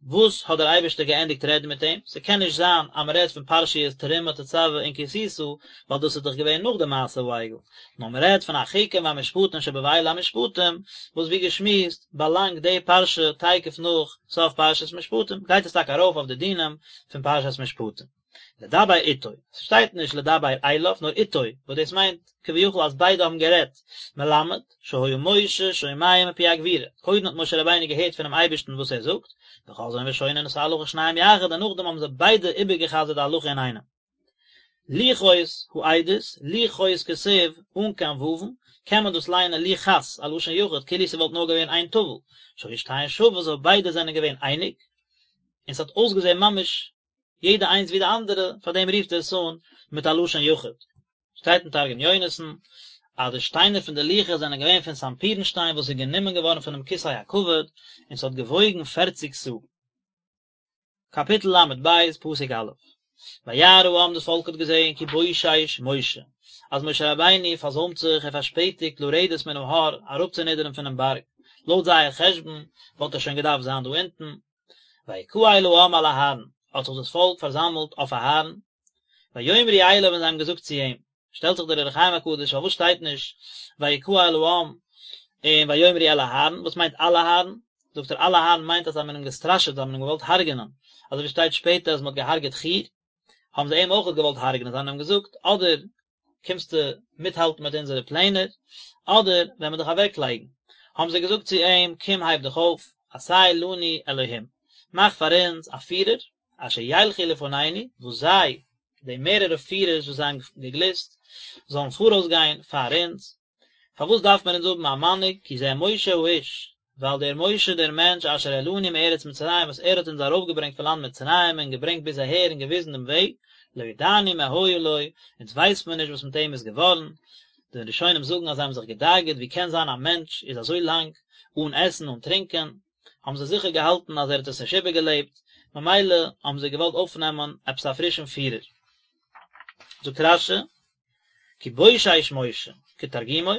וואס האט דער אייבערשטער געענדיגט רעדן מיט אים? ס'קען נישט זיין אז מ'רעדט פון פרשיות תרומה תצוה און כי תשא, ווייל דאס איז דאך געווען נאך די מעשה העגל, נאר מ'רעדט פון החוקים והמשפטים שבאלה המשפטים, וואס ווי געשמועסט באלאנגט די פרשה תיכף נאך סוף פרשת משפטים, גייט עס טאקע ארויף אויף די דינים פון פרשת משפטים. לדבר איתו, ס'שטייט נישט לדבר אליו נאר איתו, וואס דאס מיינט כביכול אז ביידע האבן גערעדט, מלמד, שהיה משה שומע מפי הגבורה, קודם האט משה רבינו געהערט פונעם אייבערשטן וואס ער זאגט, וחוזרין ושונין את ההלכה שניהם יחד און נאכדעם האבן זיי ביידע איבערגע'חזר'ט די הלכה אינאיינעם. לוחות העדות, לוחות כתיב, אן קיין וואוון, קען מען דאס ליינען לוכת, א לשון יחיד, כאילו ס'וואלט נאר געווען איין טאוול, שהיו שתיהן שוות, אויב ביידע זענען געווען אייניג, און ס'האט אויסגעזען ממש יעדע איינס ווי די אנדערע, פאר דעם רופט ער עס אן מיט א לשון יחיד. שטייט אין תרגום יונתן, אז די שטיינער פון די לוחות זענען געווען פון סנפירן שטיין וואס איז גענומען געווארן פונעם כסא הכבוד, און ס'האט געוואויגן פערציג סאה. קאפיטל ל"ב, פסוק א'. וירא העם דאס פאלק האט געזען כי בושש משה, אז משה רבינו פארזוימט זיך, ער פארשפעטיגט לרדת מן ההר, אראפצונידערן פונעם בארג, לויט זייער חשבון וואלט ער שוין געדארפט זיין דא אונטן. ויקהל העם על אהרן, האט זיך דאס פאלק פארזאמלט אויף אהרן, ויאמרו אליו און זיי האבן געזאגט צו אים, שטעלט זיך דער אור החיים הקדוש פארוואס שטייט נישט ויקהל העם און ויאמרו אל אהרן, וואס מיינט על אהרן? זאגט ער על אהרן מיינט אז זיי האבן אים געסטראשעט, זיי האבן אים געוואלט הרג'נען, אזוי ווי שטייט שפעטער אז מען האט געהארגעט חור, האבן זיי אים אויך געוואלט הרג'נען, זיי האבן אים געזאגט אדער קומסטו מיטהאלטן מיט אונזערע פלענער, אדער וועלן מיר דיך אוועקלייגן. האבן זיי געזאגט צו אים, קום הייב דיך אויף, עשה לנו אלהים, מאך פאר אונז א פירער, אשר ילכו לפנינו, וואס זיי, די מערערע פירערס וואס זיי האבן געגליסט, זאלן פאראויס גיין פאר אונז. פארוואס דארף מען אונז האבן א מנהיג, כי זה משה האיש, ווייל דער משה דער מענטש אשר העלנו מארץ מצרים וואס ער האט אונז ארויפגעברענגט פון לאנד מצרים און געברענגט ביז אהער און געוויזן דעם וועג, לא ידענו מה היה לו, אונז ווייסט מען נישט וואס מיט אים איז געווארן, די ראשונים זאגן אז זיי האבן זיך געדאגה'ט ווי קען זיין א מענטש איז אזוי לאנג אן עסן אן טרינקען, האבן זיי זיכער געהאלטן אז ער האט עס נישט איבערגעלעבט, ממילא האבן זיי געוואלט אויפנעמען עפעס א פרישן פירער. זאגט רש"י, כי בושש משה, כתרגומו,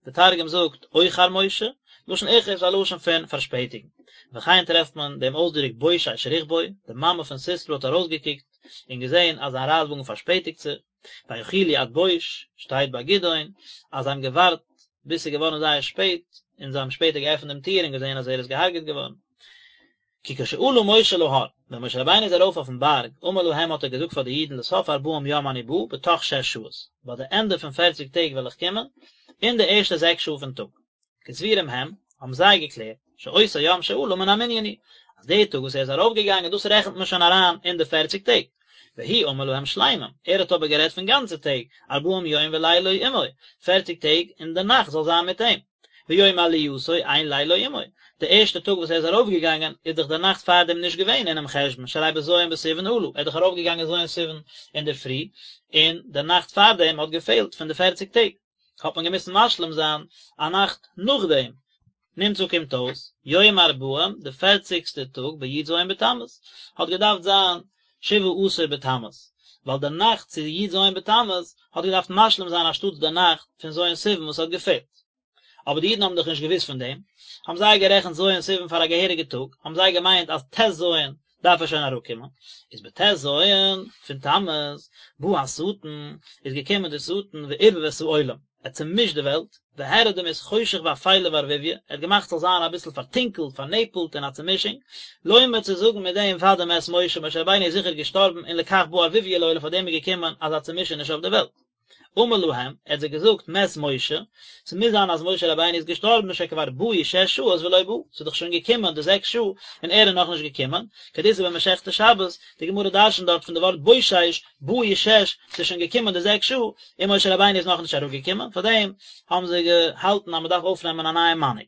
די תרגום זאגט אוחר משה, לשון איחור איז א לשון פון פארשפעטיגן. וכן טרעפט מען דעם אויסדרוק בושש רכבו, די מאמע פון סיסרא האט ארויסגעקוקט און געזען אז זיין רייטוואגן פארשפעטיגט זיך, ויאכילו עד בוש, שטייט ביי גדעון אז זיי האבן געווארט ביז ס'איז געווארן זייער שפעט, און זיי האבן שפעטער געעפנט דעם טיר און געזען אז ער איז געהארגעט געווארן. כי כשעלה משה להר, ווען משה רבינו איז ארויף אויפן בארג, אמר להם האט ער געזאגט פאר די אידן לסוף ארבעים יום אני בא, בתוך שש שעות, ביי די ענדע פון פערציג טעג וועל איך קומען, אין די ערשטע זעקס שעה פון טאג. כסבורים הם, האבן זיי געקלערט, שאותו יום שעלה מן המנין הוא, אז די טאג וואס ער איז ארויפגעגאנגען דאס רעכנט מען שוין אריין אין די פערציג טעג. והוא אמר להם שלמים, ער האט אבער גערעדט פון גאנצע טעג, ארבעים יום ולילו עמו, פערציג טעג און די נאכט זאל זיין מיט אים. ויום עלייתו אין לילו עמו, די ערשטע טאג וואס ער איז ארויפגעגאנגען איז דאך די נאכט פארדעם נישט געווען אינעם חשבון, שהרי בז' בסיוון עלה, ער איז דאך ארויפגעגאנגען ז' סיוון אינדערפרי, און די נאכט פארדעם האט געפעלט פון די פערציג טעג, האט מען געמוזט משלים זיין א נאכט נאכדעם. נמצא קומט אויס, יום ארבעים, די פערציגסטע טאג בי"ז בתמוז, האט געדארפט זיין שבעה עשר בתמוז, ווייל די נאכט צו י"ז בתמוז האט געדארפט משלים זיין אנשטאטס די נאכט פון ז' סיוון וואס האט געפעלט. אבער די אידן האבן דאך נישט געוואוסט פון דעם, האבן זיי גערעכנט ז' סיוון פאר א געהעריגע טאג, האבן זיי געמיינט אז ט"ז דארף ער שוין אראפקומען, איז בט"ז פון תמוז, בא השטן, איז געקומען דער שטן וערבב את העולם, ער האט צעמישט די וועלט, והראה דמות חושך ואפלה וערבוביא, ער האט געמאכט ס'זאל זיין אביסל פארטונקלט, פארנעפלט און א צעמישונג, לומר צו זאגן מיט דעם ודאי מת משה, משה רבינו איז זיכער געשטארבן און לכך בא ערבוביא לעולם פאר דעם איז געקומען אזא צעמישעניש אויף די וועלט. אמר להם, ער האט זיי געזאגט, מת משה, ס'מוז זיין אז משה רבינו איז געשטארבן שכבר באו שש שעות ולא בא, ס'איז דאך שוין געקומען די זעקס שעה און ער איז נאכנישט געקומען, כדאיתא במסכת שבת, די גמרא דרשנ'ט דארט פון די ווארט בושש, באו שש, ס'איז שוין געקומען די זעקס שעה, און משה רבינו איז נאכנישט אראפגעקומען, פארדעם האבן זיי געהאלטן אז מ'דארף אויפנעמען א נייעם מנהיג.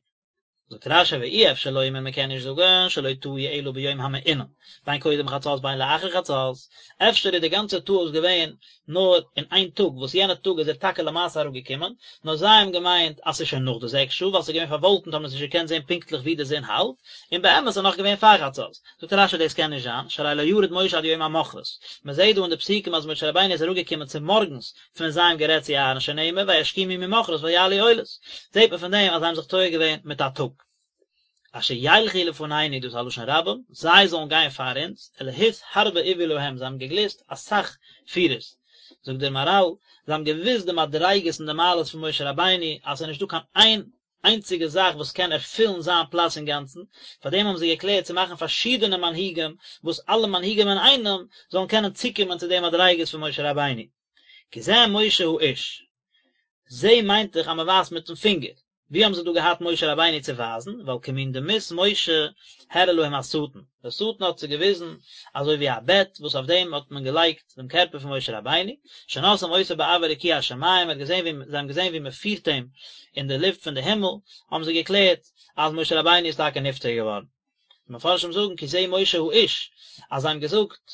זאגט רש"י ואי אפשר לומר מען קען נישט זאגן שלא טעו אלא ביום המעונן בין קודם חצות בין לאחר חצות, אפשר איז די גאנצע טעות געווען נאר אין איין טאג וואס יענע טאג איז ער טאקע למעשה אראפגעקומען, נאר זיי האבן געמיינט אז ס'איז שוין נאך די זעקס שעה ווייל ס'איז געווען פארוואלקנט האבן זיי נישט געקענט זען פונקטליך ווי די זון האלט, און באמת איז נאך געווען פאר חצות. זאגט רש"י דאס קען נישט זיין, שהרי לא ירד משה עד יום המחרת, מען זעט דא אין די פסוקים אז משה רבינו איז אראפגעקומען צומארגנס פון זיי האבן גערעדט צו אהרן שנאמר וישכימו ממחרת ויעלו עולות, זעט מען פון דעם אז זיי האבן זיך טועה געווען מיט א טאג. אשר ילכו לפנינו דאס איז א לשון רבים, זיי זאלן גיין פאר אונז, אלהות הרבה אוו להם, זיי האבן געגליסט אסאך פירערס, זאגט דער מהר"ל, זיי האבן געוואוסט די מדריגות און די מעלות פון משה רבינו, אז עס איז נישטא קיין איין איינציגע זאך וואס קען ערפילן זיין פלאץ אינגאנצן, פאר דעם האבן זיי געקלערט צו מאכן פארשידענע מנהיגים, וואס אלע מנהיגים אינאיינעם זאלן קענען צוקומען צו די מדריגות פון משה רבינו. כי זה משה האיש. זה מיינט דאך אז מען ווייזט מיטן פינגער. ווי האבן זיי דא געהאט משה רבינו צו ווייזן? ווייל כמין דמות משה הראה להם השטן. דער שטן האט זיי געוויזן אזוי ווי א בעט וואס אויף דעם האט מען געלייגט דעם קערפער פון משה רבינו, שנושאים אותו באויר רקיע השמים, מען האט געזען ווי, זיי האבן געזען ווי מען פירט אים אין די לופט פון די הימל, האבן זיי געקלערט אז משה רבינו איז טאקע נפטר געווארן. די מפרשים זאגן כי זה משה האיש, אז זיי האבן געזאגט,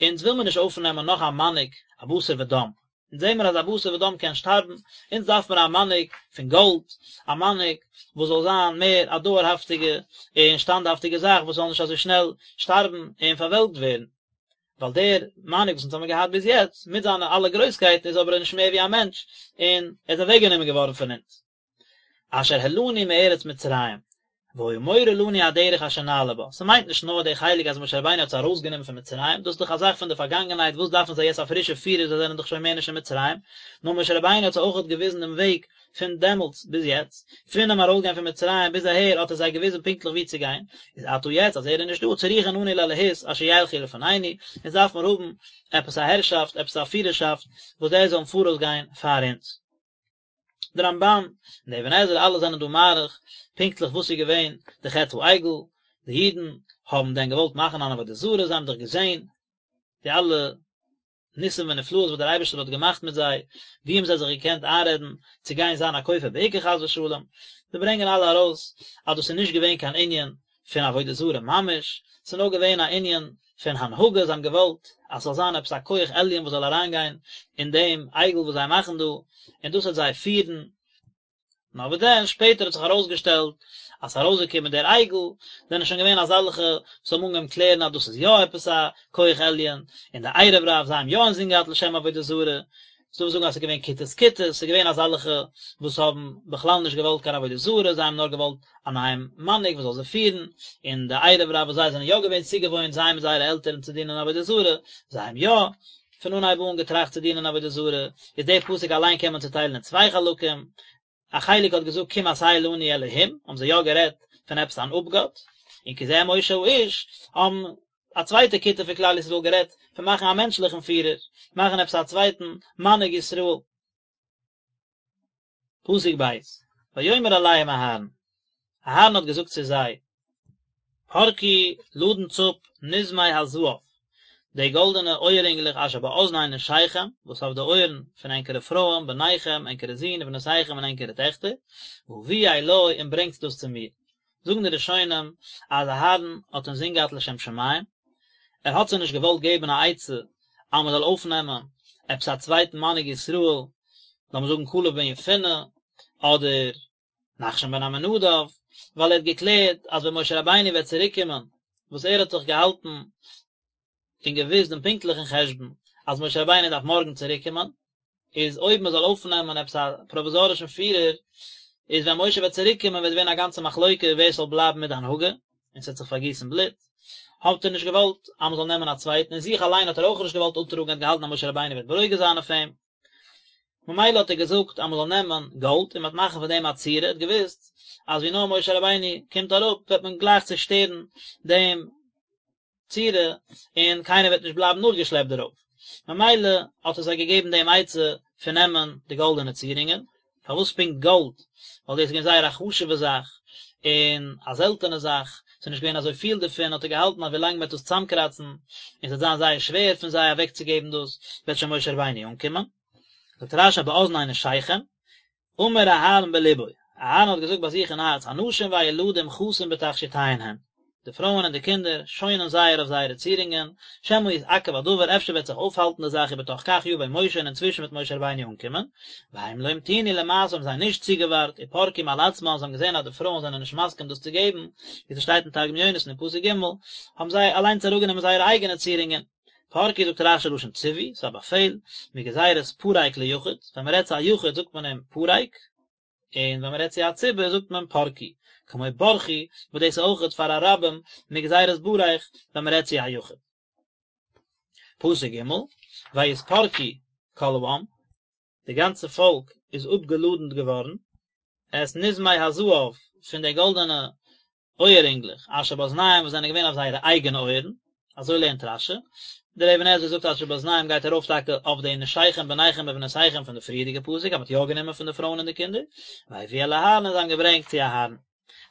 אונז וויל מיר נישט אויפנעמען נאך א מנהיג א בשר ודם, אונז זעהן מיר אז א בשר ודם קען שטארבן, אונז דארף מיר א מנהיג פון גאלד, א מנהיג וואס זאל זיין מער א דויערהאפטיגע און שטאנדהאפטיגע זאך וואס זאל נישט אזוי שנעל שטארבן און פארוועלקט ווערן. ווייל דער מנהיג וואס אונז האבן געהאט ביז יעצט, מיט זיינע אלע גרויסקייטן איז אבער נישט מער ווי א מענטש, און ער איז אוועקגענומען געווארן פון אונז. אשר העלנו מארץ מצרים, והיה מורה לנו הדרך אשר נעלה בה, ס'מיינט נישט נאר די חלק אז משה רבינו האט זיי ארויסגענומען פון מצרים, דאס איז דאך א זאך פון די פארגאנגענהייט וואס דארפן זיי יעצט א פרישע פירער זיי זענען דאך שוין מער נישט אין מצרים, נאר משה רבינו האט זיי אויכעט געוויזן דעם וועג פון דעמאלטס ביז יעצט, פונעם ארויסגיין פון מצרים ביז אהער האט ער זיי געוויזן פונקטליך וואו צו גיין, איז עתה יעצט אז ער איז נישט דא צריכין אנו לאלהות אשר ילכו לפנינו, אונז דארף מיר האבן עפעס א הערשאפט, עפעס א פירערשאפט וואס די זאלן פאראויס גיין פאר אונז. די רמב"ן און די אבן עזרא אלע זענען דא מאריך פונקטליך וואס איז געווען די חטא העגל, די אידן האבן דען געוואלט מאכן אן עבודה זרה, זיי האבן דאך געזען די אלע ניסים ונפלאות וואס דער אייבערשטער האט געמאכט מיט זיי, ווי האבן זיי זיך געקענט איינרעדן צו גיין זיין א כופר בעיקר חס ושלום, זיי ברענגען אלע ארויס אז דאס איז נישט געווען קיין ענין פון עבודה זרה ממש, ס'איז נאר געווען א ענין פון הנהגה, זיי האבן געוואלט אז ס'זאל זיין עפעס א כח עליון וואס זאל אריינגיין אין דעם עגל וואס זיי מאכן דא, און דאס וועט זיי פירן. נאר וואס דען, שפעטער האט זיך ארויסגעשטעלט אז ס'איז ארויסגעקומען דער עגל, זענען שוין געווען אזעלכע וואס האבן אנגעהויבן קלערן אז דאס איז יא עפעס א כח עליון, און די ערב רב זיי האבן יא אינזין געהאט לשם עבודה זרה, ס'דא וואס זאגן אז ס'איז געווען כיתות כיתות, ס'איז געווען אזעלכע וואס האבן בכלל נישט געוואלט קיין עבודה זרה, זיי האבן נאר געוואלט א נייעם מנהיג וואס זאל זיי פירן, און די ערב רב וואס זיי זענען יא געווען צוגעוואוינט זיי מיט זייערע עלטערן צו דינען עבודה זרה, זיי האבן יא פון אנהייב אן געטראכט צו דינען עבודה זרה, איז דער פסוק אליין קען מען צוטיילן אין צוויי חלקים, א חלק האט געזאגט קום עשה לנו אלהים, האבן זיי יא גערעדט פון עפעס אן אפגאט, און כי זה משה האיש, האבן א צווייטע כיתה פון כלל ישראל גערעדט פון מאכן א מענטשליכן פירער, מאכן עפעס א צווייטן מנהיג ישראל. פסוק ב', ויאמר אליהם אהרן, אהרן האט געזאגט צו זיי, פרקו לאדנטס אפ נזמי הזהב, די גאלדענע אויעררינגלעך אשר באזני נשיכם, וואס אויף די אויערן פון ענקערע פרויען, בניכם, ענקערע זין, ובנותיכם און ענקערע טעכטער, והביאו אלי און ברענגטס דאס צו מיר. זאגן די ראשונים אז אהרן האט אינזין געהאט לשם שמים, ער האט זיי נישט געוואלט געבן א עצה אז מען זאל אויפנעמען עפעס א צווייטן מנהיג ישראל, לאמיר זאגן כלב בן יפונה, אדער נחשון בן עמינדב, ווייל ער האט געקלערט אז ווען משה רבינו וועט צוריק קומען, וואס ער האט זיך געהאלטן און געוואוסט דעם פונקטליכן חשבון אז משה רבינו דארף מארגן צוריק קומען, איז אויב מען זאל אויפנעמען עפעס א פראוויזארישן פירער, איז ווען משה וועט צוריק קומען וועט ווערן א גאנצע מחלוקה ווער ס'זאל בלייבן מיט די הנהגה, און ס'וועט זיך פארגיסן בלוט. האט ער נישט געוואלט אז מען זאל נעמען א צווייטן, און זיך אליין האט ער אויך נישט געוואלט אפטראגן, ער האט געהאלטן אז משה רבינו וועט ברוגז זיין אויף אים. ממילא האט ער געזאגט אז מען זאל נעמען גאלד און מען וועט מאכן פון דעם א צורה, ער האט געוואוסט אז ווי נאר משה רבינו קומט אראפ וועט מען גלייך צושטערן דעם צורה און קיינער וועט נישט בלייבן נאכגעשלעפט דערויף, ממילא האט ער זיי געגעבן דעם עצה פון נעמען די גאלדענע צירונגען, פארוואס פונקט גאלד? ווייל דאס איז געווען זייער א חשוב'ע זאך און א זעלטענע זאך, ס'איז נישט געווען אזוי פיל דערפון, האט ער געהאלטן אז ווילאנג מ'וועט דאס צאמקראצן און ס'וועט זיין זייער שווער פון זיי אוועקצוגעבן דאס, וועט שוין משה רבינו אנקומען. זאגט רש"י באזני נשיכם, אמר אהרן בלבו, אהרן האט געזאגט ביי זיך אין הארץ, הנשים והילדים חסין בתכשיטיהן הן, די פרויען און די קינדער שוינען זייער אויף זייערע צירונגען, שמא יתעכב הדבר, אפשר וועט זיך אויפהאלטן די זאך ובתוך כך יבא משה און אינצווישן וועט משה רבינו אנקומען, והם לא המתינו למעשה האבן זיי נישט צוגעווארט, ופרקו מעל עצמן, זיי האבן געזען אז די פרויען זענען נישט מסכים דאס צו געבן, ווי ס'שטייט אין תרגום יונתן אין פסוק ג', האבן זיי אליינס אראפגענומען זייערע אייגענע צירונגען. פרקו זאגט רש"י לשון ציווי, ס'איז א באפעל, מגזירת פרק ליחיד, ווען מ'רעדט צו א יחיד זאגט מען אים פרק, און ווען מ'רעדט צו א ציבור זאגט מען פרקו, כמו ברכו, וואס דאס איז אויכעט פאר א רבים מגזירת ברך ווען מ'רעדט צו א יחיד. פסוק ג', ויתפרקו כל העם, די גאנצע פאלק איז אפגעלאדנט געווארן, את נזמי הזהב, פון די גאלדענע אויעררינגלעך, אשר באזניהם וואס זענען געווען אויף זייערע אייגענע אויערן, אזוי לערנט רש"י, דער אבן עזרא זאגט אשר באזניהם גייט ארויף טאקע אויף די נשיכם בניכם ובנותיכם פון די פריערדיגע פסוק אז מען האט יא גענומען פון די פרויען און די קינדער, והביאו אל אהרן און זיי האבן געברענגט צו אהרן.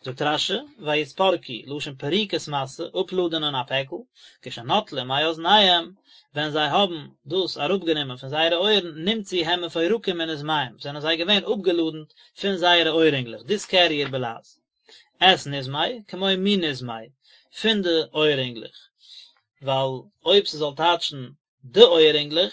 זאגט רש"י, ויתפרקו, לשון פריקת משא, אפלאדענען א פעקל, כשנטלום מאזניהם, ווען זיי האבן דאס אראפגענומען פון זייערע אויערן, נמצאו הם מפורקים מנזמיהם, זענען זיי געווען אפגעלאדנט פון זייערע אויעררינגלעך, דיסקעריער בלע"ז. את נזמי, כמו מנזמי, פון די אויעררינגלעך, ווייל אויב ס'זאל טייטשן די אויעררינגלעך,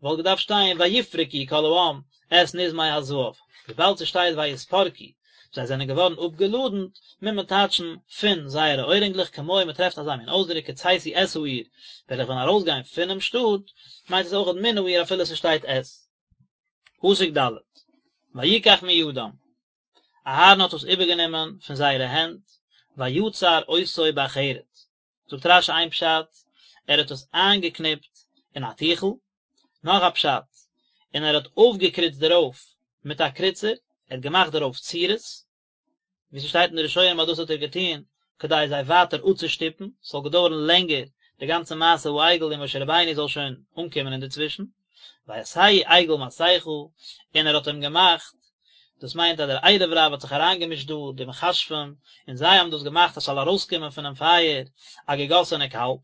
וואלט געדארפט שטיין ויפרקו כל העם את נזמי הזהב, וויבאלד ס'שטייט ויתפרקו, זיי זענען געווארן אפגעלאדנט, מוז מען טייטשן פון זייערע אוירינגלעך כמו מען טרעפט אזא מין אויסדרוק כצאתי את העיר, ווען איך וועל ארויסגיין פונעם שטאט, מיינט עס אויכעט מן העיר אפילו ס'שטייט את. פסוק ד' ויקח מידם, אהרן האט עס איבערגענומען פון זייערע הענט, ויצר אותו בחרט, זאגט רש"י איין פשט, ער האט עס איינגעקניפט אין א טיכל, נאך א פשט, און ער האט אויפגעקריצט דערויף מיט א קריצער, ער האט געמאכט דערויף צורות, ווי ס'שטייט אין די ראשונים אז דאס האט ער געטון כדי זיי ווייטער אפצושטופן, ס'זאל געדויערן לענגער די גאנצע מעשה העגל און משה רבינו זאל שוין אנקומען אינדערצווישן. ויעשהו עגל מסכה, און ער האט אים געמאכט, דאס מיינט אז דער ערב רב האט זיך אריינגעמישט דא, די מכשפים, און זיי האבן דאס געמאכט אז ס'זאל ארויסקומען פונעם פייער א געגאסענע קאלב.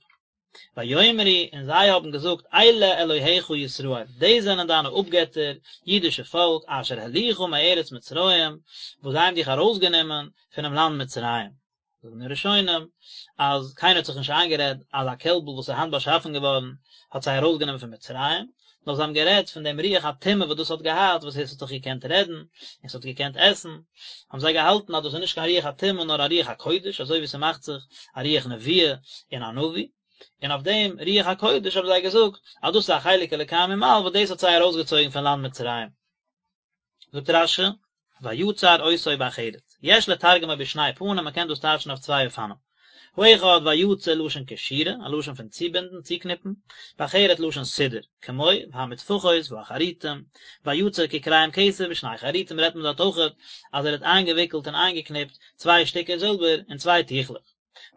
ויאמרו, און זיי האבן געזאגט, אלה אלהיך ישראל, דאס זענען דיינע אפגעטער, אידישע פאלק, אשר העלוך מארץ מצרים, וואס זיי האבן דיך ארויסגענומען פונעם לאנד מצרים. זאגן די ראשונים אז קיינער האט זיך נישט איינגערעדט אז א קעלבל וואס איז היינט באשאפן געווארן האט זיי ארויסגענומען פון מצרים, נאר זיי האבן גערעדט פון דעם רוח הטומאה וואס דאס האט געהאט, וואס עס האט דאך געקענט רעדן, און עס האט געקענט עסן, האבן זיי געהאלטן אז דאס איז נישט קיין רוח הטומאה נאר א רוח הקודש, אזוי ווי ס'מאכט זיך א רוח נבואה אין א נביא, און אויף דעם רוח הקודש האבן זיי געזאגט אז דאס איז א חלק אלוקי ממעל וואס דאס האט זיי ארויסגעצויגן פון לאנד מצרים. זאגט רש"י, ויצר אותו בחרט, יש לתרגמו בשני פנים, מען קען דאס טייטשן אויף צוויי אופנים. האחד ויצר לשון קשירה, א לשון פון צובינדן, צוקניפן, בחרט לשון סידור, כמו והמטפחות והחרטים, ויצר ככריים כסף בשני חרטים רעדט מען דארט אויכעט אז ער האט איינגעוויקלט און איינגעקניפט צוויי שטיקער זילבער אין צוויי טיכלעך.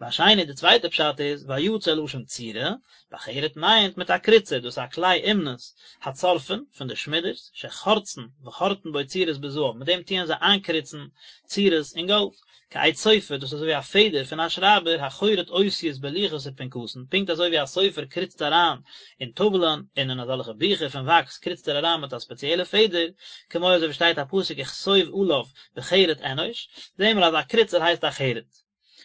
והשני די צווייטע פשט איז ויצר לשון צירה, בחרט מיינט מיט א קריצער, דאס איז א כלי אומנות, הצורפין, פון די שמידערס, שחורצין וחורטין בו צורות בזהב, מיט דעם טוען זיי איינקריצן צורות אין גאלד, כעט סופר, דאס איז אזוי ווי א פעדער פון א שרייבער, החורט אותיות בלוחות ופנקסין, פונקט אזוי ווי א סופר קריצט אריין אין טאוולען און אין אזעלכע ביכער פון וואקס קריצט ער אריין מיט א ספעציעלע פעדער, כמו אזוי ווי שטייט א פסוק וכתוב עליו בחרט אנוש, זעהן מיר אז א קריצער הייסט א חרט.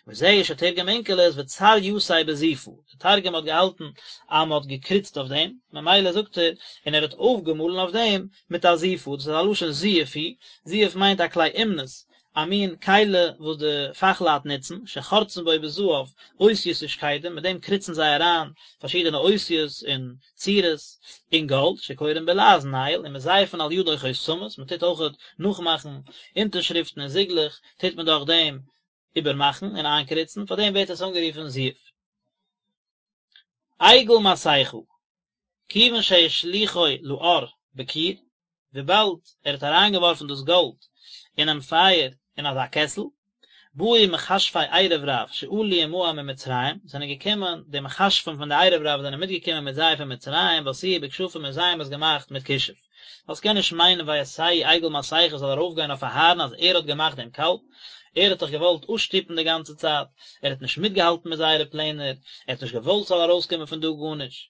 וזהו שתרגם אונקלוס וצר יתיה בזיפא, די תרגום האט געהאלטן אז מען האט געקריצט אויף דעם, ממילא זאגט ער, און ער האט אויפגעמאלן אויף דעם מיט א זיפא, דאס איז א לשון זיוף הוא, זיוף מיינט א כלי אומנות, א מין כלי וואס די פאכלייט נוצן, שחורצין בו בזהב אותיות ושקדים, מיט דעם קריצן זיי אריין פארשידענע אותיות און צורות אין גאלד, שקורין בלעז nail, ומזייפין על ידו חותמות, מען טוט אויכעט נאכמאכן אונטערשריפטן און זיגלעך, טוט מען דורך דעם איבערמאכן און איינקריצן, פאר דעם ווערט עס אנגערופן זיוף. עגל מסכה, כיוון שהשליכו לאור בכור, וויבאלד ער האט אריינגעווארפן דאס גאלד אינעם פייער אין אזא קעסל, באו מכשפי ערב רב שעלו עמהם ממצרים, זענען געקומען די מכשפים פון די ערב רב זענען מיטגעקומען מיט זיי פון מצרים, ועשאוהו בכשפים און זיי האבן עס געמאכט מיט כישוף. ווייל ס'קען נישט מיינען ויעשהו עגל מסכה זאל ארויפגיין אויף אהרן אז ער האט געמאכט דעם קאלב, ער האט דאך געוואלט אפשטופן די גאנצע צייט, ער האט נישט מיטגעהאלטן מיט זייערע פלענער, ער האט נישט געוואלט ס'זאל ארויסקומען פון דא גארנישט.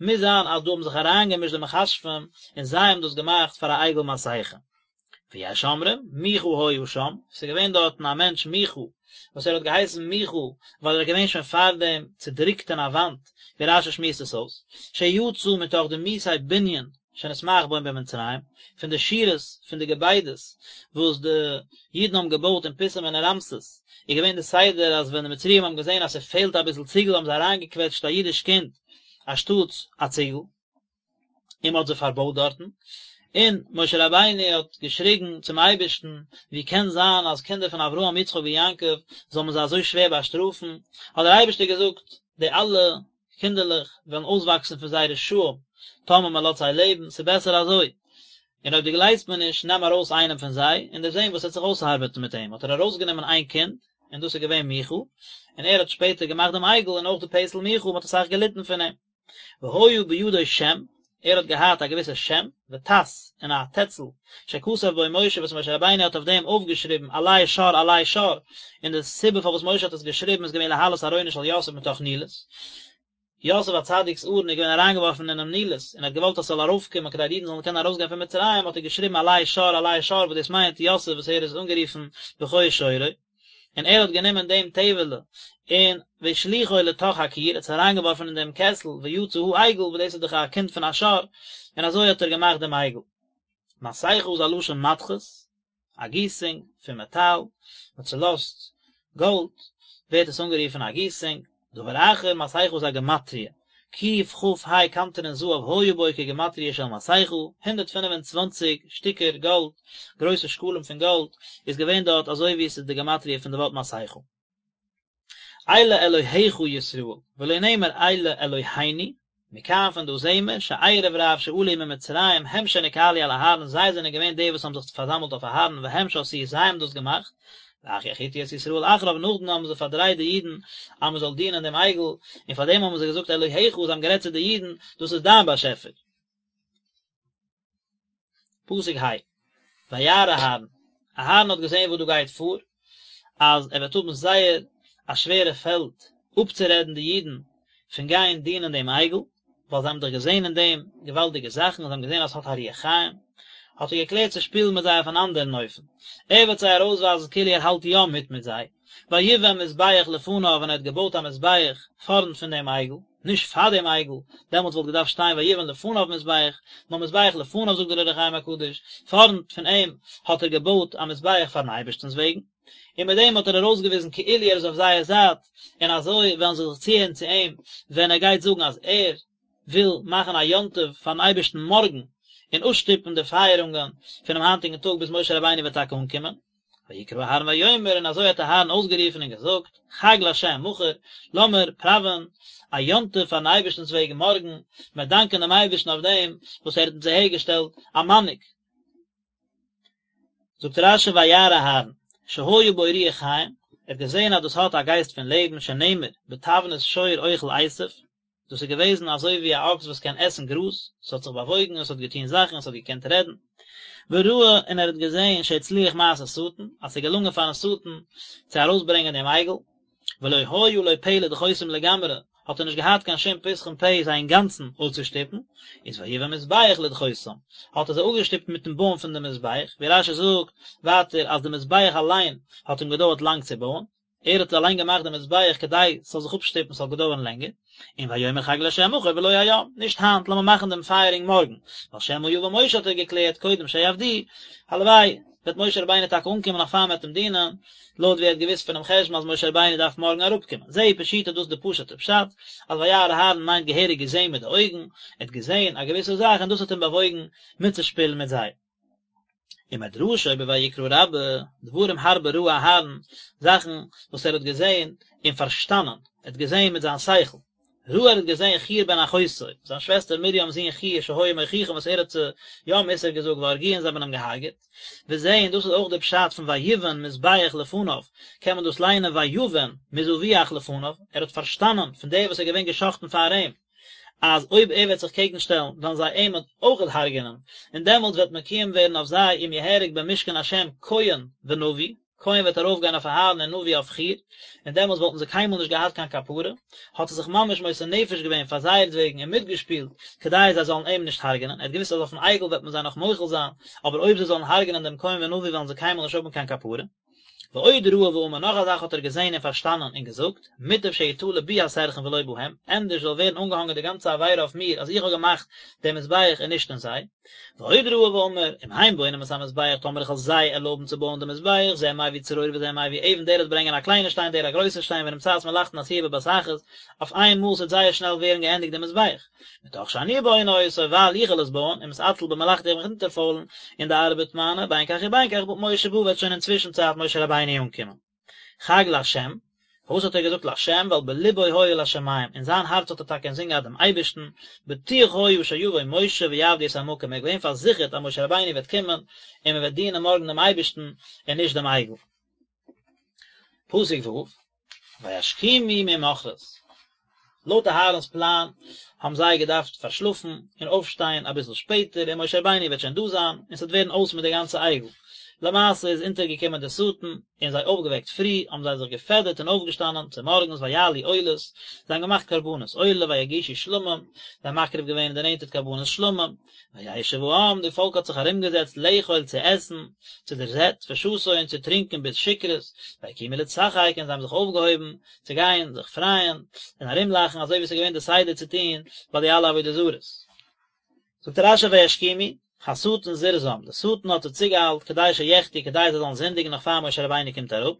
מוז זיין אז דא האבן זיך אריינגעמישט די מכשפים און זיי האבן דאס געמאכט פאר א עגל מסכה. ויש אומרים, מיכה היה שם, ס'איז געווען דארטן א מענטש מיכה, וואס ער האט געהייסן מיכה ווייל ער איז געווען שוין פארדעם צודריקט אין א וואנט, ווי רש"י שמועסט עס אויס, שיצא מתוך דמוסי בנין שנתמעך בו במצרים, פון די שורות פון די געביידעס וואס די אידן האבן געבויט אין פיתום און אין רעמסס, איז געווען די סדר אז ווען די מצריים האבן געזען אז ס'פעלט אביסל ציגל האבן זיי אריינגעקוועטשט א אידיש קינד אנשטאטס א ציגל. און מען האט זיי פארבויט דארטן, און משה רבינו האט געשריגן צום אייבערשטן, ווי קען זיין אז קינדער פון אברהם יצחק און יעקב זאל מען זיי אזוי שווער באשטראפן, האט דער אייבערשטער געזאגט, די אלע קינדערלעך וועלן אויסוואקסן פון זיי רשעים, טאמער מען לאזט זיי לעבן, ס'איז בעסער אזוי, און אויב דו גלייבסט מיר נישט, נעם ארויס איינעם פון זיי, און דו'סט זען וואס עט זיך אויסארבעטן מיט אים, האט ער ארויסגענומען איין קינד, און דאס איז געווען מיכה, און ער האט שפעטער געמאכט דעם עגל און אויך די פסל מיכה, מען האט אסאך געליטן פון אים. והיה בידו שם, ער האט געהאט א געוויסע שם, וטס, און א טעצל, שכתב בו משה וואס משה רבינו האט אויף דעם אויפגעשריבן עלה שור עלה שור, און די סיבה פארוואס משה האט עס געשריבן איז געווען להעלות ארונו של יוסף מתוך נילוס, יוסף הצדיק'ס ארון איז געווען אריינגעווארפן אינעם נילוס, און ער האט געוואלט אז ס'זאל ארויפקומען כדי די אידן זאלן קענען ארויסגיין פון מצרים, האט ער געשריבן עלה שור עלה שור וואס דאס מיינט יוסף וואס ער איז אנגערופן בכור שורו. און ער האט גענומען דעם טעוועלע און והשליכו לתוך הכור, ער האט עס אריינגעווארפן אין דעם קעסל, ויצא העגל, וואס דאס איז דאך א קינד פון א שור, און אזוי האט ער געמאכט דעם עגל. מסכה איז א לשון מתכות, א גיסונג פון מעטאל, מען צולאזט גאלד, ווערט עס אנגערופן א גיסונג, דבר אחר, מסכה איז א גמטריא, קכ"ה קנטרין זהב היה בו כגמטריא של מסכה, 125 שטיקער גאלד, גרויסע שקלים פון גאלד, איז געווען דארט אזוי ווי עס איז די גמטריא פון די ווארט מסכה. אלה אלהיך ישראל, ולא נאמר אלה אלהינו, מכאן פון דא זעהן מיר, שערב רב שעלו ממצרים הם שנקהלו על אהרן זיי זענען געווען די וואס האבן זיך פארזאמלט אויף אהרן והם שעשאוהו זיי האבן דאס געמאכט, ואחר יחיתו את ישראל אחריו נאכדעם האבן זיי פארדרייט די אידן אז מען זאל דינען דעם עגל, און פאר דעם האבן זיי געזאגט אלהיך זיי האבן גערעדט צו די אידן דאס איז דיין באשעפער. פסוק ה', וירא אהרן, אהרן האט געזען וואס דא גייט פאר, אז ער וועט האבן זייער א שווערע פעלד אפצורעדן די אידן פון גיין דינען דעם עגל, ווייל זיי האבן דאך געזען אין דעם געוואלדיגע זאכן, זיי האבן געזען אז עס האט א רוח חיים, האט ער געקלערט צו שפילן מיט זיי אויף אן אנדערן אופן, ער וועט זיי ארויסווייזן כאילו ער האלט יא מיט מיט זיי, ויבן מזבח לפניו און ער האט געבויט א מזבח פארנט פון דעם עגל. נישט פאר דעם עגל, דעמאלטס וואלט געדארפט שטיין ויבן לפניו מזבח, נאר מזבח לפניו זאגט דער אור החיים הקדוש, פארנט פון אים האט ער געבויט א מזבח פארן אייבערשטנ'ס וועגן, און מיט דעם האט ער ארויסגעוויזן כאילו ער איז אויף זייער זייט, און אזוי וועלן זיי זיך צוהערן צו אים ווען ער גייט זאגן אז ער וויל מאכן א יום טוב פארן אייבערשטן מארגן, און אפשטופן די פייערונגען פונעם היינטיגן טאג ביז משה רבינו וועט טאקע אנקומען. ויקרא אהרן ויאמר, און אזוי האט אהרן אויסגערופן און געזאגט, חג לה' מחר, לאמיר פראווען א יום טוב פארן אייבערשטנ'ס וועגן מארגן, מיר דאנקען דעם אייבערשטן אויף דעם וואס ער האט אונז אהערגעשטעלט א מנהיג. זאגט רש"י וירא אהרן, שהיה בו רוח חיים, ער האט געזען אז דאס האט א גייסט פון לעבן, שנאמר, בתבנית שור אוכל עשב, דאס איז געוועזן אזוי ווי א אקס וואס קען עסן גראז, עס האט זיך באוואויגן, עס האט געטון זאכן, עס האט געקענט רעדן. וראה, און ער האט געזען שהצליח מעשה שטן, אז עס איז געלונגען פארן שטן צו ארויסברענגען דעם עגל, ולא היה לו פה לדחותם לגמרי, האט ער נישט געהאט קיין שום פתחון פה זיי אינגאנצן אפצושטופן, איז ויבן מזבח לדחותם, האט ער זיי אפגעשטופט מיטן בויען פון דעם מזבח, ווי רש"י זאגט ווייטער אז די מזבח אליין האט אים געדויערט לאנג צו בויען. ער האט אליין געמאכט די מזבח כדי ס'זאל זיך אפשטופן ס'זאל געדויערן לענגער, און ויאמר חג לה' מחר ולא היום, נישט היינט, לאמיר מאכן דעם פייערונג מארגן, ווייל שמא יבא משה האט ער געקלערט קודם שיעבדוהו, הלוואי וועט משה רבינו טאקע אנקומען נאך פאר מ'וועט אים דינען, לויט ווי ער האט געוואוסט פונעם חשבון אז משה רבינו דארף מארגן אראפקומען. זהו פשוטו דאס איז די פשוט'ע פשט, אז וירא אהרן מיינט געהעריג געזען מיט די אויגן, ער האט געזען א געוויסע זאך און דאס האט אים באוואויגן מיטצושפילן מיט זיי. ומדרשו בויקרא רבה, דברים הרבה ראה אהרן, זאכן וואס ער האט געזען און פארשטאנען, ער האט געזען מיט זיין שכל, ראה ער האט געזען חור בן אחותו, זיין שוועסטער מרים'ס זון חור שהיה מוכיחם וואס ער האט זיי יא מוסר געזאגט והרגוהו און זיי האבן אים געהארגעט, וזה און דאס איז אויך די פשט פון ויבן מזבח לפניו, קען מען דאס ליינען ויבן מזבוח לפניו, ער האט פארשטאנען פון דער וואס איז געווען גע'שחט'ן פאר אים, אז אויב ער וועט זיך קעגן שטעלן וועלן זיי אים אויכעט הרג'ענען, און דעמאלטס וועט מקוים ווערן אויף זיי אם יהרג במשכן השם כהן ונביא, כהן וועט ארויף גיין אויף אהרן און נביא אויף חור, און דעמאלטס וואלטן זיי קיינמאל נישט געהאט קיין כפרה, האט ער זיך ממש מוסר נפש געווען פאר זייערט וועגן און מיטגעשפילט כדי זיי זאלן אים נישט הרג'ענען, ער האט געוואוסט אז אויפן עגל וועט מען זיי נאך מוחל זיין, אבער אויב זיי זאלן הרג'ענען דעם כהן ונביא וועלן זיי קיינמאל נישט האבן קיין כפרה. ועוד ראה ואמר נאך א זאך האט ער געזען און פארשטאנען און געזאגט, מוטב שיתלה בי הסרחון ולא בהם, ענדערש זאל ווערן אנגעהאנגען די גאנצע עבירה אויף מיר אז איך האב געמאכט דעם מזבח און נישט אין זיי. ועוד ראה ואמר, אם הם בונים את המזבח טאמער איך וועל זיי ערלויבן צו בויען דעם מזבח, זה מביא צרור וזה מביא אבן דער וועט ברענגען א קליינע שטיין דער א גרויסע שטיין ונמצאת מלאכתן עשויה בבת אחת, אויף איין מאל ס'וועט זייער שנעל ווערן געענדיגט דעם מזבח. מתוך שאני בונה אותו ווייל איך וועל עס בויען, ומתעצל במלאכתי איך וועל מיך אונטערפוילן אין די ארבעט מיינע, בין כך ובין כך משה בא וועט שוין אינצווישן צייט משה רבינו אנקומען. חג לה', פארוואס האט ער געזאגט לה', ווייל בלבו היה לשמים, אין זיין הארץ האט ער טאקע אינזין געהאט דעם אייבערשטן, בטוח היה שיבוא משה ויעבדו את המקום, ער איז געווען פארזיכערט אז משה רבינו וועט קומען און מען וועט דינען מארגן דעם אייבערשטן און נישט דעם עגל. פסוק ו', וישכימו ממחרת. לויט אהרן'ס פלאן האבן זיי געדארפט פארשלאפן און אויפשטיין אביסל שפעטער און משה רבינו וועט שוין דא זיין און ס'וועט ווערן אויס מיט די גאנצע עגל. למעשה איז אונטערגעקומען דער שטן און זיי אויפגעוועקט פרי, האבן זיי זיך געפעדערט און אויפגעשטאנען צומארגנס ויעלו עולות, זיי האבן געמאכט קרבנות עולה ויגישו שלמים, זיי האבן מקריב געווען און דערנענטערט קרבנות שלמים, וישב העם, די פאלק האט זיך ארומגעזעצט לאכול צו עסן, צו דער זעט, ושתו און צו טרינקען ביז שכרות, ויקומו לצחק און זיי האבן זיך אויפגעהויבן צו גיין זיך פרייען און ארומלאכן אזוי ווי עס איז געווען די סדר צו טון ביי די אלע עבודה זרות. זאגט רש"י וישכימו, השטן זירזם, די שטן האט זיי צוגעאיילט כדי שיחטאו כדי זיי זאלן זינדיגן נאך פאר משה רבינו קומט אראפ,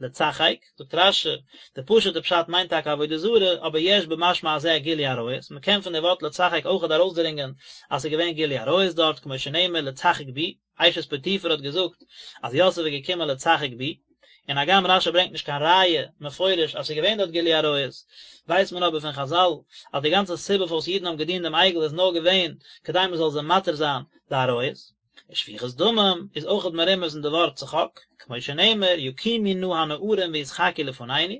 לצחק, זאגט רש"י, די פשוט'ע פשט מיינט טאקע עבודה זרה, אבער יש במשמע הזה גילוי עריות, מען קען פון די ווארט לצחק אויכעט ארויסדרינגען אז ס'איז געווען גילוי עריות דארט, כמו שנאמר לצחק בי, אשת פוטיפר האט געזאגט אז יוסף איז געקומען לצחק בי, און הגם רש"י ברענגט נישט קיין ראיה מפורש אז ס'איז געווען דארט גילוי עריות, ווייסט מען אבער פון חז"ל אז די גאנצע סיבה פארוואס אידן האבן געדינט דעם עגל איז נאר געווען כדי מען זאל זיי מתיר זיין די עריות. ושפיכות דמים איז אויכעט מרומז אין די ווארט צחוק, כמו שנאמר יקומו נא הנערים וישחקו לפנינו,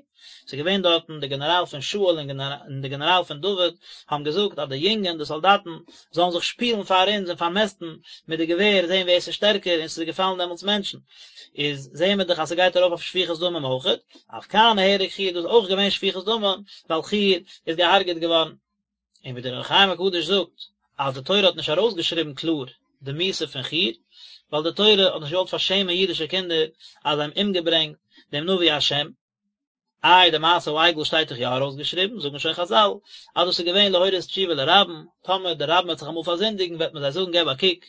ס'איז געווען דארטן די גענעראל פון שאול און די גענעראל פון דוד האבן געזאגט אז די יונגען די סאלדאטן זאלן זיך שפילן פאר אונז און פארמעסטן מיט די געווער זען ווער ס'איז שטערקער און ס'איז געפאלן דעמאלטס מענטשן, איז זעען מיר דאך אז ס'גייט ארויף אויף שפיכות דמים אויכעט, אף כאן נהרג חור דא איז אויך געווען שפיכות דמים ווייל חור איז געהארגעט געווארן. און ווי דער אור החיים הקדוש זאגט אז די תורה האט נישט ארויסגעשריבן קלאר די מיתה פון חור, ווייל די תורה האט נישט געוואלט פארשעמען אידישע קינדער אז זיי האבן אומגעברענגט דעם נביא השם. איי די מעשה העגל שטייט דאך יא ארויסגעשריבן, זאגן שוין חז"ל אז דאס איז געווען להורות תשובה לרבים, טאמער די רבים וועט זיך אמאל פארזינדיגן וועט מען זיי זאגן געב א קוק,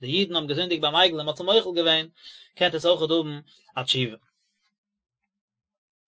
די אידן האבן געזינדיגט ביים עגל און מען האט זיי מוחל געווען, קענט עטס אויכעט האבן א תשובה.